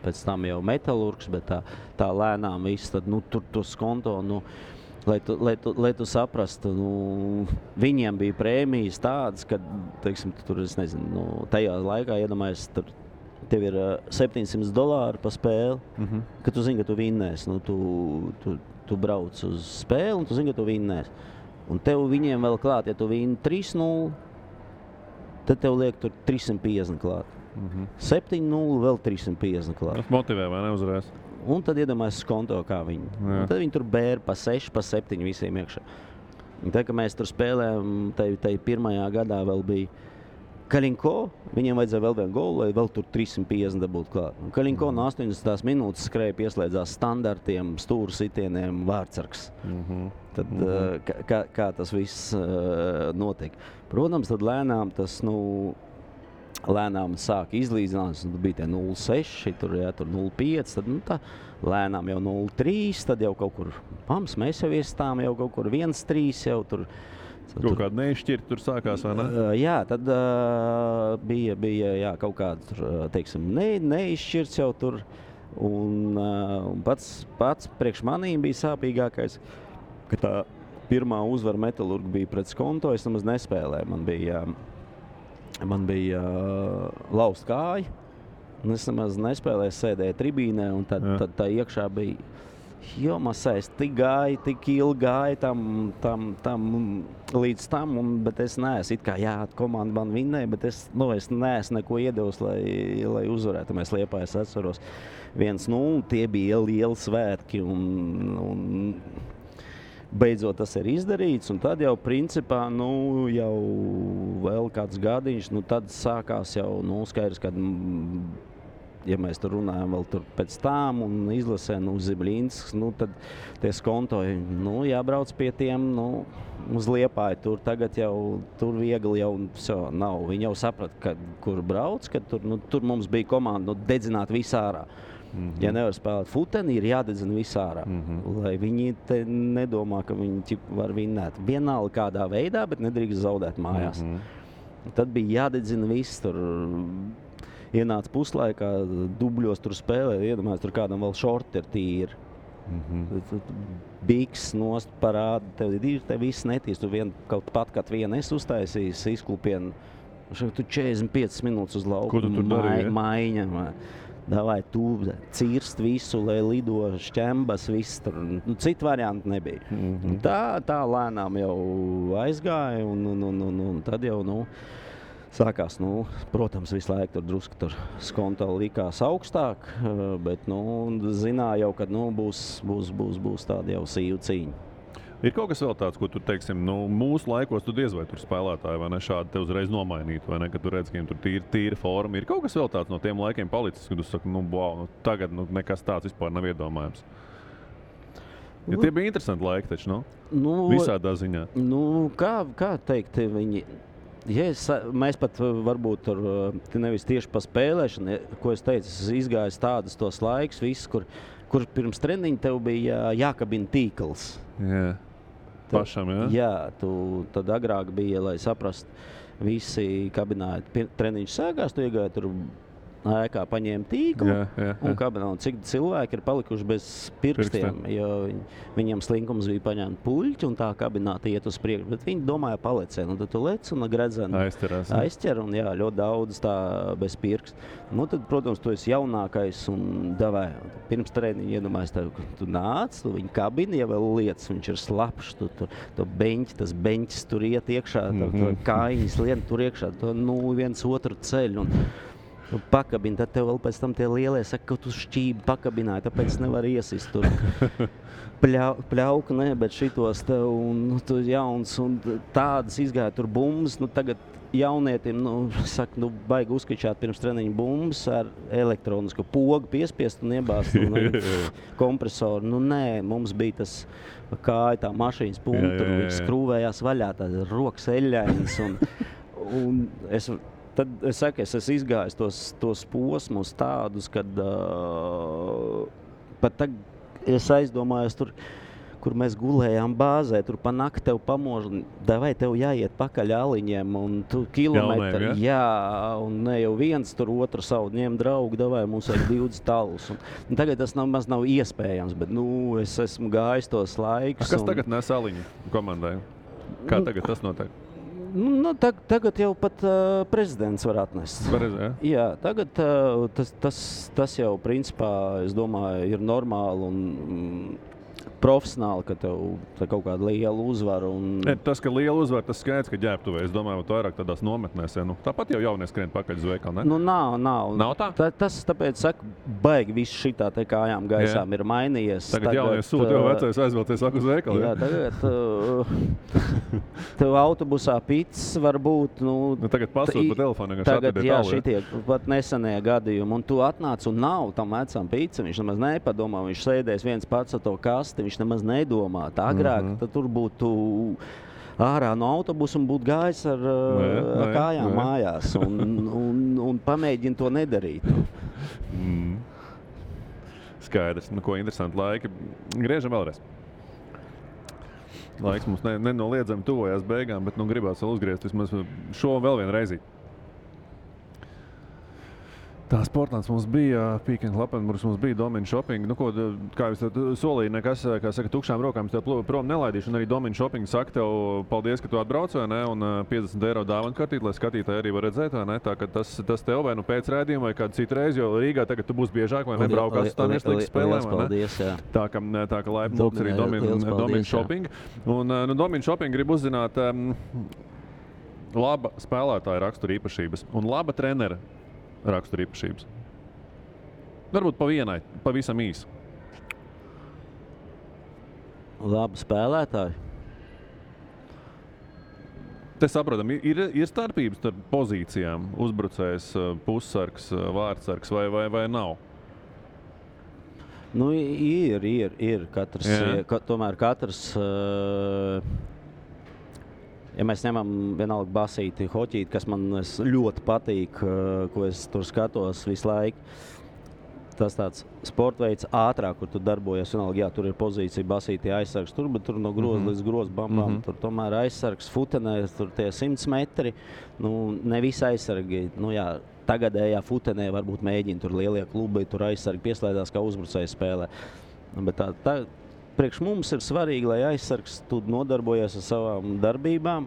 pēc tam jau Metalurgs, bet tā lēnām viss, tad, tur to skonto, Lai tu saprastu, viņiem bija prēmijas tādas, ka, teiksim, tur, es nezinu, tajā laikā, iedomājies, tev ir $700 pa spēli, ka tu zini, ka tu vinnēsi. Tu brauc uz spēli un tu zini, ka tu vinnēsi. Un tev viņiem vēl klāt, ja tu vinni 3-0, tad tev liek tur 350 klāt. 7-0 vēl 350 klāt. Tas motivē, vai ne, uzreiz? Un tad iedomājies skonto, kā viņi. Un tad viņi tur bēra pa 6, pa 7 visiem iekšā. Un tad, kad mēs tur spēlējām, tai pirmajā gadā vēl bija Kalinko, viņiem vajadzēja vēl vienu golu, lai vēl tur 350 dabūtu klāt. Un Kalinko no 80 minūtes skrēja pieslēdzās standartiem, stūru sitieniem, vārdsargs. Tad kā tas viss notiek. Protams, tad lēnām tas, lēnām sāk izlīdzināt, bija tie 0,6, tur 0,5, tad tā lēnām jau 0,3, tad jau kaut kur, mēs jau iestām jau kaut kur 1,3 jau tur. Kaut kāda neizšķirta tur sākās, vai ne? Jā, tad bija kaut kāda, teiksim, neizšķirts jau tur. Un pats priekš manīm bija sāpīgākais, ka tā pirmā uzvara Metalurga bija pret Skonto, es nemaz nespēlēju. Man bija laust kāja, un es nemaz nespēlēju, sēdēju tribīnē, un tad tā iekšā bija Masais tik gāja, tik ilgi gāja tam līdz tam, bet es neesmu, it kā komanda man vinnēja, bet es neesmu neko iedevis, lai uzvarētu. Mēs Liepājās atceros 1-0, tie bija lieli svētki un beidzot tas ir izdarīts, un tad jau principā, jau vēl kāds gadiņš, tad sākās jau, skaidrs, kad ja mēs tur runājam vēl tur pēc tām un izlasē, Zibliņsks, tad tie skontoji, jābrauc pie tiem, uz Liepāju tur tagad jau, tur viegli jau nav. Viņi jau saprata, kur brauc, ka tur mums bija komanda, dedzināt visārā. Ja nevar spēlēt futeni, ir jādedzina visārā, lai viņi te nedomā, ka viņi var vinnēt. Vienalga kādā veidā, bet nedrīkst zaudēt mājās. Tad bija jādedzina viss tur. Ienāca puslaikā, dubļos tur spēlē, iedomājies, tur kādam vēl šorti ir tīri. Biks nost parāda, tev viss netīs, tu kaut pat, kad vienu es uztaisījis izklupienu, tu 45 minūtes uz lauku. Ko tu tur darīji? Maiņa, davai tu cirst visu, lai lido šķembas, viss tur, citu variantu nebija. Tā lēnām jau aizgāja, un tad jau, sākās, protams, visu laiku tur drusku tur skonto likās augstāk, bet, zināja jau, ka, būs tāda jau sīva cīņa. Ir kaut kas vēl tāds, ko tu, teiksim, mūsu laikos tu diez vai tur spēlētāji, vai ne, šādi te uzreiz nomainītu, vai ne, kad tu redz, ka viņiem tur tīra forma. Ir kaut kas vēl tāds no tiem laikiem palicis, kad tu saki, tagad nekas tāds vispār nav iedomājams. Ja tie bija interesanti laiki taču, visādā ziņā. Kā teikt, viņi... mēs pat varbūt tur nevis tieši pa spēlēšanu, ko es teicu, es izgāju tādas tos laikus, viss, kur pirms treniņa tev bija jākabina tīkls. Jā, pašam, jā? Jā, tad agrāk bija, lai saprast, visi kabināja, treniņš sākās, tu iegāji tur ēkā, paņēma tīklu un kabinā. Un cik cilvēki ir palikuši bez pirkstiem, jo viņiem slinkums bija paņemt puļķi un tā kabināta iet uz priekšu, bet viņi domāja palecē. Tad tu lec un gredzeni aizķer un ļoti daudz tā bez pirkst. Tad, protams, tu esi jaunākais un davai. Pirms treniņa iedomājies tev, tu nāc, tu viņu kabini, ja vēl lietas, viņš ir slapšs, tas beņķis tur iet iekšā, kājiņas lien tur iekšā, viens otru ceļu. Pakabini, tad tev vēl pēc tam tie lielie saka, ka tu šķībi pakabināji, tāpēc nevar iesist tur. Pļauka, bet šitos tev, un tu jauns, un tādas izgāja tur bumbas, tagad jaunietim, baigi uzskačāt pirms treniņa bumbas ar elektronisku pogu piespiest un iebāzt kompresoru. Nē, mums bija tas kāja, tā mašīnas punktu, viņš skrūvējās vaļā, tā rokas eļļainas, un Tad es saku, es esmu izgājis tos posmus tādus, kad pat tagad es aizdomājos tur, kur mēs gulējām bāzē, tur pa nakti tev pamož, vai tev jāiet pakaļ aliņiem, un tu kilometri, jā, un ne jau viens tur otru savu ņem draugu, vai mums vajag 20 talus. Un tagad tas nav iespējams, bet, es esmu gājis tos laikus. Kas tagad nes aliņu komandai? Kā tagad tas notiek? Tagad jau pat prezidents var atnest. Jā, tagad tas jau principā, es domāju, ir normāli un profesionāli, ka tev kaut kāda liela uzvara. Tas, ka liela uzvara, tas skaidrs, ka ģērbtuvē. Es domāju, ka vairāk tādās nometnēs. Tāpat jau jaunie skrien pakaļ uz veikalu, ne? Nav. Nav tā? Tas tāpēc, saku, baigi viss šitā te kājām gaisām ir mainījies. Tagad jaunie sūta, jau vecais aizvilcies uz veikalu. Jā, tagad tev autobusā pits var būt. Tagad pasūt pa telefonu. Tagad, šitie pat nesenie gadījumi. Un tu atnāc un nav tam vecam pits. Viņš nemaz nepadomā. Viņš sēdēs viens pats ar to kasti. Viņš nemaz nedomā. Tā agrāk tad tur būtu ārā no autobusa un būtu gājis ar kājām mājās un pamēģina to nedarīt. Skaidrs. Ko interesanti laiki. Griežam vēlreiz. Laiks mums nenoliedzami tuvojās beigām, bet gribās vēl uzgriezt vismaz šo vēl vienu reizi. Tā Sportlands mums bija, Peak & Klappenburgs mums bija, Domina Shopping. Kā jūs solīja, nekas, kā saka, tukšām rokām tev prom nelaidīšu. Un arī Domina Shopping saka tev paldies, ka tu atbrauc, vai ne? Un 50 eiro dāvanu kartīt, lai skatītāji arī var redzēt, vai ne? Tā, ka tas tev vai pēc rēdījuma vai kādu citu reizi, jo Rīgā tagad tu būs biežāk, vai ne? Braukās uz tādiem līgas spēlēm, vai ne? Paldies, jā. Tā ka laipni lūgts arī Domina Shopping. Un Domina Shopping grib uzzināt laba spēlētāja rakstura īpašības un laba trenera rakstura īpašības. Varbūt pa vienai, pavisam īsi. Labi spēlētāji. Te saprotam, ir starpības starp pozīcijām, uzbrucējs, pussargs, vārdsargs vai nav? Ir. Tomēr katrs... Ja mēs ņemam vienalga basīti, hoķīti, kas man ļoti patīk, ko es tur skatos visu laiku, tas tāds sporta veids ātrāk, kur tu darbojies. Vienalga, jā, tur ir pozīcija basītī aizsargs, bet tur no groza līdz groza bambām. Tur tomēr aizsargs futenē, tur tie 100 metri. Ne visi aizsargi, tagadējā futenē varbūt mēģina tur lielie klubi, tur aizsargi pieslēdās kā uzbrucēji spēlē. Bet priekš mums ir svarīgi, lai aizsargs tu nodarbojies ar savām darbībām.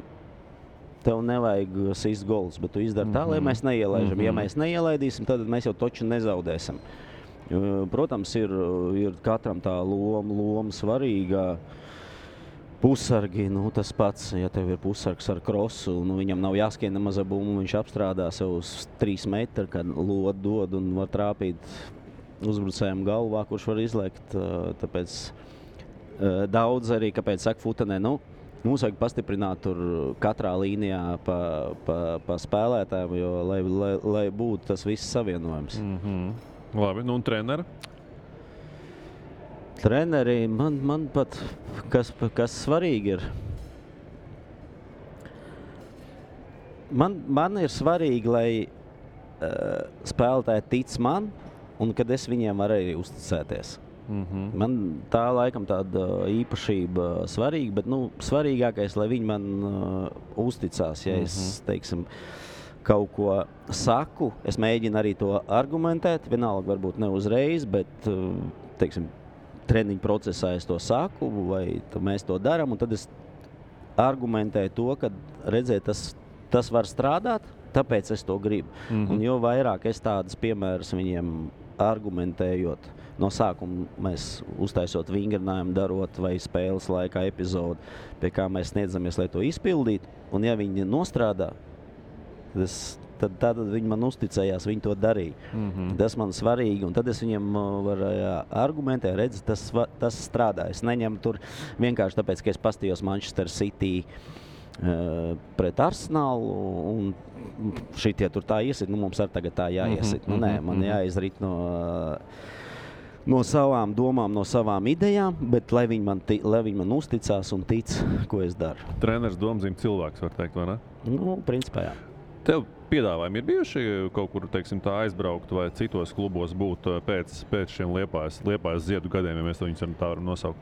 Tev nevajag sist gols, bet tu izdari tā, lai mēs neielaižam. Ja mēs neielaidīsim, tad mēs jau toču nezaudēsim. Protams, ir katram tā loma svarīga. Pussargi, tas pats, ja tev ir pussargs ar krosu, viņam nav jāskrien nemaz ar bumbu, viņš apstrādā sev uz 3 metru, kad lodu dod un var trāpīt uzbrucējiem galvā, kurš var izlekt. Tāpēc daudz arī, kāpēc saka futenē, mums vajag pastiprināt tur katrā līnijā pa spēlētājiem, jo lai būtu tas viss savienojums. Labi, un treneri? Treneri, man pat, kas svarīgi ir, man ir svarīgi, lai spēlētāji tic man, un kad es viņiem varu arī uzticēties. Man tā laikam tāda īpašība svarīga, bet svarīgākais, lai viņi man uzticās. Ja es, teiksim, kaut ko saku, es mēģinu arī to argumentēt, vienalga varbūt ne uzreiz, bet, teiksim, treniņu procesā es to saku, vai mēs to darām, un tad es argumentēju to, ka redzēt, tas var strādāt, tāpēc es to gribu. Un jo vairāk es tādas piemēras viņiem argumentējot, no sākuma mēs uztaisot vingrinājumu, darot vai spēles laikā epizodi, pie kā mēs sniedzamies, lai to izpildītu. Un ja viņi nostrādā, tad viņi man uzticējās, viņi to darīja. Tas man svarīgi, un tad es viņiem varu argumentēt, redz, tas strādā. Es neņemu tur vienkārši tāpēc, ka es pastījos Manchester City pret Arsenālu, un šitie tur tā iesit, mums arī tagad tā jāiesit. Nē, man jāizrit no savām domām, no savām idejām, bet lai viņi man uzticās un tic, ko es daru. Treneris domzīm cilvēks, var teikt, vai ne? Principā jā. Tev piedāvājumi ir bijuši kaut kur, teiksim, tā aizbraukt vai citos klubos būt pēc šiem Liepājas Ziedu gadiem, ja mēs to viņus tā varam nosaukt?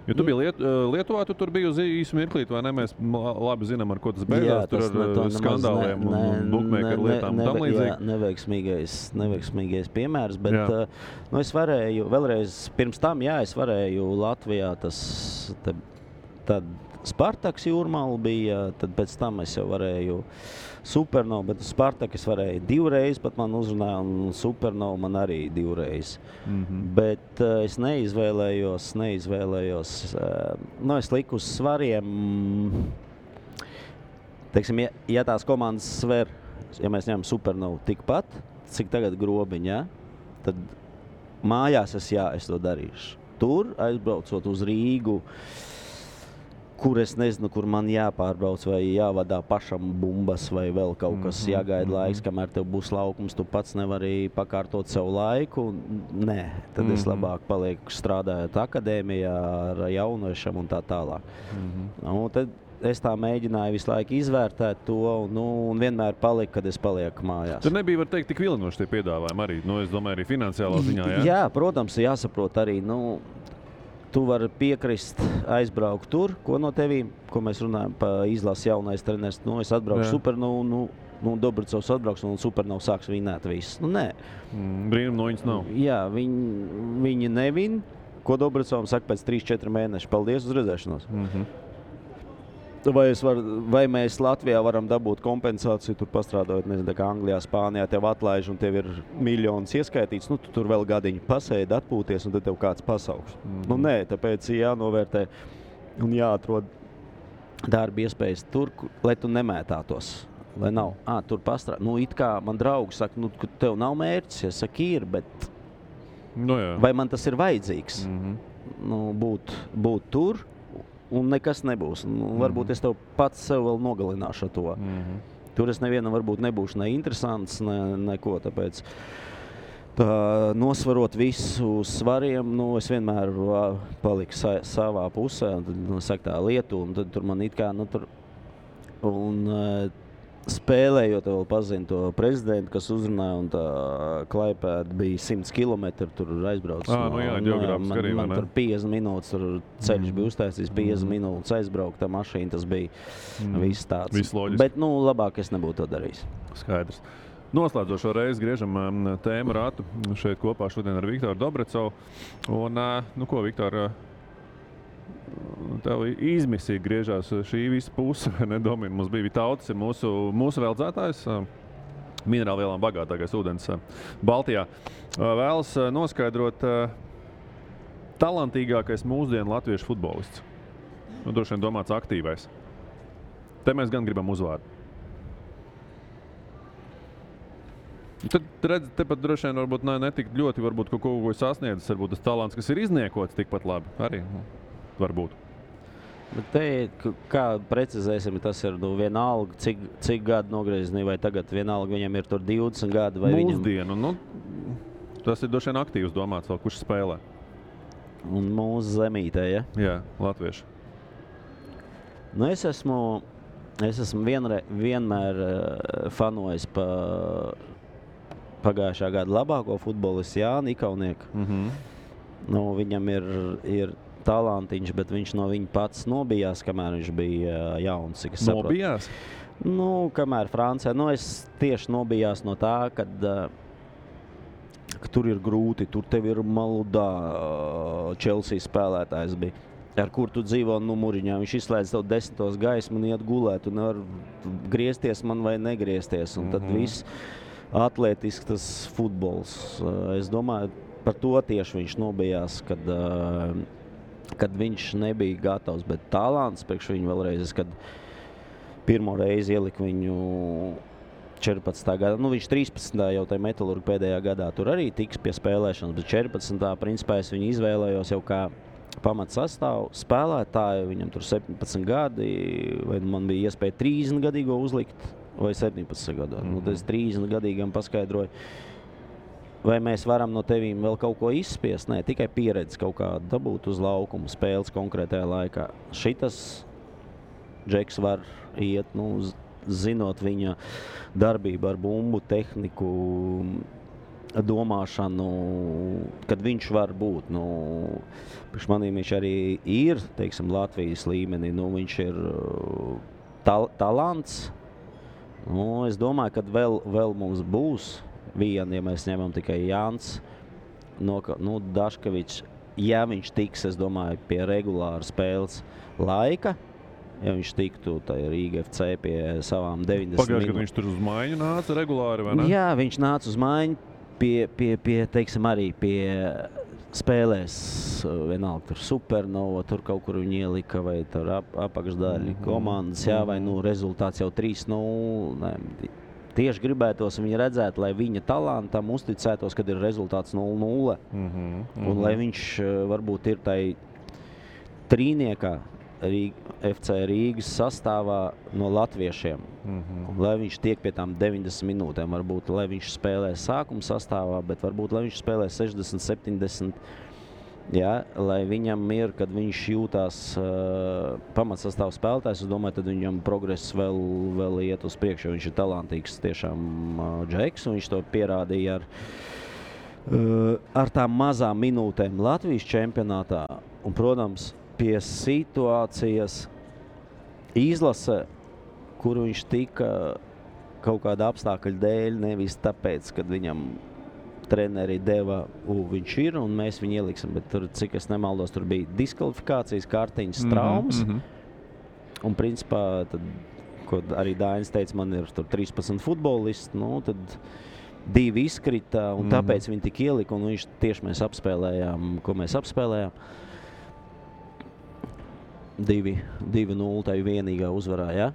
Jo tu biji Lietuvā, tu tur biji uz īsu mirklīt, vai ne? Mēs labi zinām, ar ko tas beidzās. Tur ar skandāliem un bookmakeru lietām un tam līdzīgi. Jā, neveiksmīgais piemērs, bet es varēju, vēlreiz pirms tam, es varēju Latvijā tad Spartaks Jūrmala bija, tad pēc tam es jau varēju Supernovu, bet Spartak es varēju 2 reizes, pat man uzrunāja, un Supernovu man arī 2 reizes. Bet es neizvēlējos, es liku uz svariem, teiksim, ja tās komandas sver, ja mēs ņemam Supernovu tikpat, cik tagad Grobiņa, tad mājās es to darīšu. Tur, aizbraucot uz Rīgu, kur es nezinu, kur man jāpārbrauc vai jāvadā pašam bumbas vai vēl kaut kas jāgaida laiks, kamēr tev būs laukums, tu pats nevari pakārtot sev laiku. Nē, tad es labāk palieku strādājot akadēmijā ar jauniešiem un tā tālāk. Tad es tā mēģināju visu laiku izvērtēt to un vienmēr paliku, kad es palieku mājās. Tur nebija, var teikt, tik vilinoši tie piedāvājumi arī, es domāju, arī finansiālā ziņā, jā? Jā, protams, jāsaprot arī, tu vari piekrist aizbraukt tur, ko no tevīm, ko mēs runājam pa izlases jaunais treneris. Es atbraucu Supernovu, Dobricovs atbrauks un Supernovu sāks vinēt viss. Nē. Brīnum no viņas nav. Jā, viņi nevin, ko Dobricovs saka pēc 3-4 mēneši. Paldies, uz redzēšanos. Vai mēs Latvijā varam dabūt kompensāciju, tur pastrādājot, nezinu, kā Anglijā, Spānijā tev atlaiž un tev ir miljonus ieskaitīts, tu tur vēl gadiņu pasēdi, atpūties un tad tev kāds pasauks. Nē, tāpēc jānovērtē un jāatrod darba iespējas tur, lai tu nemētātos. Lai nav, tur pastrādā. It kā man draugi saka, ka tev nav mērķis, ja saka ir, bet vai man tas ir vajadzīgs? Būt tur. Un nekas nebūs. Varbūt es tev pats sev vēl nogalināšu ar to. Tur es nevienam varbūt nebūšu ne interesants, neko. Tāpēc nosvarot visu svariem, es vienmēr paliku savā pusē. Un tad saka tā Lietuva, un tad tur man it kā, spēlējot, vēl pazinu to prezidentu, kas uzrunāja, un tā Klaipēda bija 100 kilometri, tur aizbrauc. Geogrāfiski arī, man tur 50 minūtes, tur ceļš bija uztaisījis, 50 minūtes aizbraukt, tā mašīna, tas bija viss tāds. Viss loģiski. Bet, labāk es nebūtu to darījis. Skaidrs. Noslēdzošo reizi griežam tēmu ratu šeit kopā šodien ar Viktoru Dobricovu. Un, ko, Viktor, tev izmisīgi griežās šī visa puse, Domina. Mums bija Vitautis, ir mūsu veldzētājs, minerālvielām bagātākais ūdens Baltijā. Vēlas noskaidrot talantīgākais mūsdienu latviešu futbolists. Droši vien domāts aktīvais. Te mēs gan gribam uzvārdu. Tad redz, tepat droši vien varbūt netik ļoti varbūt kaut ko sasniedzis, varbūt tas talants, kas ir izniekots tikpat labi arī. Varbūt. Bet te, kā precizēsim, tas ir vienalga, cik gadu nogriezni, vai tagad vienalga viņam ir tur 20 gadi, vai mūsdienu, tas ir droši vien aktīvs domāts vēl, kurš spēlē. Un mūsu zemītē, ja? Jā, latvieši. Es esmu vienmēr fanojis pagājušā gada labāko futbolistu Jāni Ikaunieku. Viņam ir talantiņš, bet viņš no viņa pats nobijās, kamēr viņš bija jauns. Nobijās? Kamēr Francijā. Es tieši nobijās no tā, ka tur ir grūti, tur tev ir Maludā, Chelsea spēlētājs bija, ar kur tu dzīvo numuriņā. Viņš izslēdz tev 10. gaismu un iet gulēt, un nevar griezties man vai negriezties. Un tad viss atlētisks tas futbols. Es domāju, par to tieši viņš nobijās, kad viņš nebija gatavs, bet talants priekš viņu vēlreiz, kad pirmo reizi ieliku viņu 14. gadā. Viņš 13. jau tajā Metalurga pēdējā gadā tur arī tiks pie spēlēšanas, bet 14. principā es viņu izvēlējos jau kā pamatsastāvu spēlētāju. Viņam tur 17 gadi, vai man bija iespēja 30 gadīgo uzlikt, vai 17 gadā. Tas 30 gadīgam paskaidroju, vai mēs varam no tevīm vēl kaut ko izspiest? Nē, tikai pieredzi kaut kā dabūt uz laukumu spēles konkrētajā laikā. Šitas Džeks var iet, zinot viņa darbību ar bumbu, tehniku, domāšanu, kad viņš var būt. Priekš manīm viņš arī ir, teiksim, Latvijas līmenī. Viņš ir talants. Es domāju, ka vēl mums būs viena, ja mēs ņemam tikai Jānis Daškevičs. Ja viņš tiks, es domāju, pie regulāra spēles laika, ja viņš tiktu Rīga FC pie savām 90 Pagājuši, kad viņš tur uz maiņu nāca regulāri, vai ne? Jā, viņš nāca uz maiņu pie teiksim, arī pie spēlēs, vienalga tur Supernova, tur kaut kur viņi ielika, vai tur apakšdaļa komandas, jā, vai rezultāts jau 3-0. Tieši gribētos viņu redzēt, lai viņa talantam uzticētos, kad ir rezultāts 0-0. Un lai viņš varbūt ir tai trīniekā FC Rīgas sastāvā no latviešiem. Lai viņš tiek pie tām 90 minūtēm, varbūt, lai viņš spēlē sākuma sastāvā, bet varbūt, lai viņš spēlē 60, 70. Ja, lai viņam ir, kad viņš jūtās pamatsastāv spēlētājs, es domāju, tad viņam progress vēl iet uz priekšu, jo viņš ir talantīgs tiešām džeks, un viņš to pierādīja ar tām mazām minūtēm Latvijas čempionātā. Un, protams, pie situācijas izlase, kur viņš tika kaut kāda apstākļa dēļ, nevis tāpēc, kad viņam treneri deva, viņš ir, un mēs viņu ieliksim, bet tur, cik es nemaldos, tur bija diskvalifikācijas, kārtiņas, traumas, un principā, tad, ko arī Dainis teica, man ir tur 13 futbolisti, tad 2 izkrita, un tāpēc viņi tik ielika, un viņš tieši mēs apspēlējām, ko mēs apspēlējām. 2-0, tā ir vienīgā uzvarā, ja?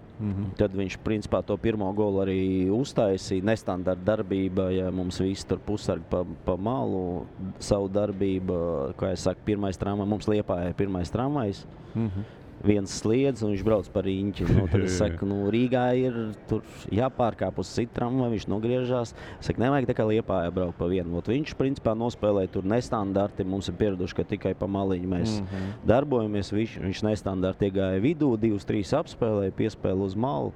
Tad viņš, principā, to pirmo golu arī uztaisīja. Nestandarta darbība, ja mums visi tur pusargi pa malu, savu darbību, kā es saku, pirmais tramvajs, mums Liepājā ir pirmais tramvajs. Viens sliedz, un viņš brauc par riņķi. Tad es saku, Rīgā ir tur jāpārkāp uz citu tramvaju, viņš nogriežās. Es saku, nevajag tā kā Liepājā braukt pa vienu. Viņš, principā, nospēlēja tur nestandarti. Mums ir pieraduši, ka tikai pa maliņu mēs darbojamies. Viņš nestandarti iegāja vidū, 2-3 apspēlēja, piespēle uz malu.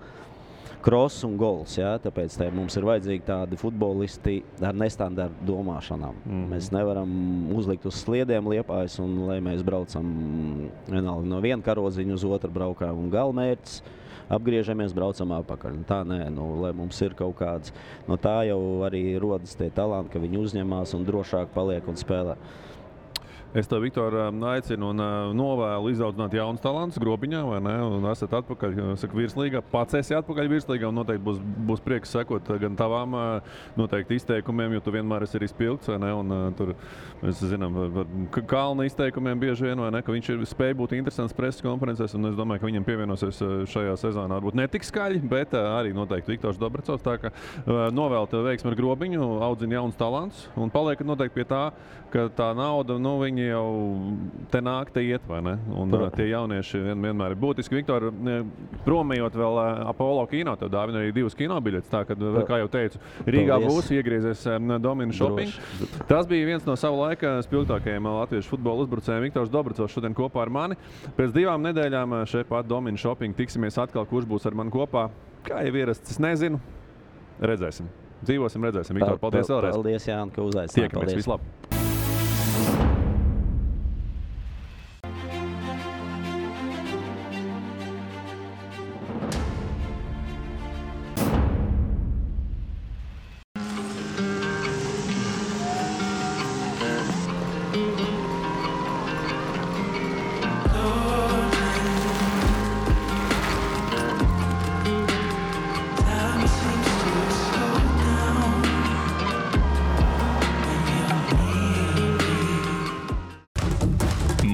Kross un gols, jā, tāpēc mums ir vajadzīgi tādi futbolisti ar nestandartu domāšanām. Mēs nevaram uzlikt uz sliediem Liepājas, un lai mēs braucam vienalga no viena karodziņa uz otru braukām un galmērķis, apgriežamies, braucam apakaļ. Tā nē, lai mums ir kaut kāds, no tā jau arī rodas tie talanti, ka viņi uzņemās un drošāk paliek un spēlē. Es tev, Viktor, aicinu un novēlu izaudzināt jaunus talantus Grobiņā, vai ne? Un esat atpakaļ, saka, virslīgā. Pats esi atpakaļ virslīgā, un noteikti būs prieks sekot gan tavām noteikti izteikumiem, jo tu vienmēr esi arī spilgts, vai ne? Un tur, mēs zinām, Kalna izteikumiem bieži vien, vai ne? Ka viņš spēja būt interesants preses konferencēs, un es domāju, ka viņam pievienosies šajā sezonā. Varbūt ne tik skaļi, bet arī noteikti Viktors Dobracovs. Tā ka novēlu tev veiksmi ar Grobiņu, audzina jaunus talantus, un paliekat noteikti pie tā, ka tā nauda, viņi jau te nāk, te iet, vai ne? Un tie jaunieši vienmēr ir būtiski. Viktor, promējot vēl Apollo kino, tev dāvina arī 2 kinobiļetes, tā, kad, kā jau teicu, Rīgā būs iegriezies Domina Shopping. Tas bija viens no savu laika spilgtākajiem latviešu futbola uzbrucējiem. Viktors Dobracovs šodien kopā ar mani. Pēc 2 nedēļām šeit pat Domina Shopping tiksimies atkal, kurš būs ar mani kopā. Kā jau ierasts, es nezinu. Redzēsim. Dzīvosim, redzēsim. Viktor, paldies vēlreiz. Paldies, Jāni, ka uzaicināt. Tiekamies, vislabāk.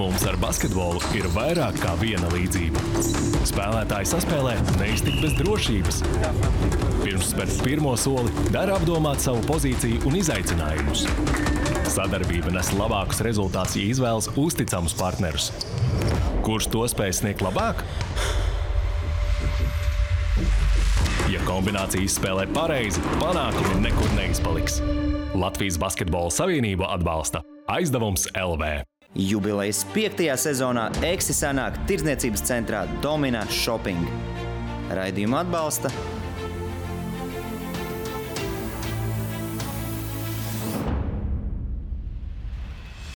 Mums ar basketbolu ir vairāk kā viena līdzība. Spēlētāji saspēlē neiztikt bez drošības. Pirms spērt pirmo soli, dara apdomāt savu pozīciju un izaicinājumus. Sadarbība nes labākus rezultātus, ja izvēlas uzticamus partnerus. Kurš to spēj sniegt labāk? Ja kombinācija izspēlē pareizi, panākumi nekur neizpaliks. Latvijas Basketbola Savienība atbalsta Aizdevums LV. Jubilejas 5. sezonā Eksi sanāk tirdzniecības centrā Domina Shopping. Raidījumu atbalsta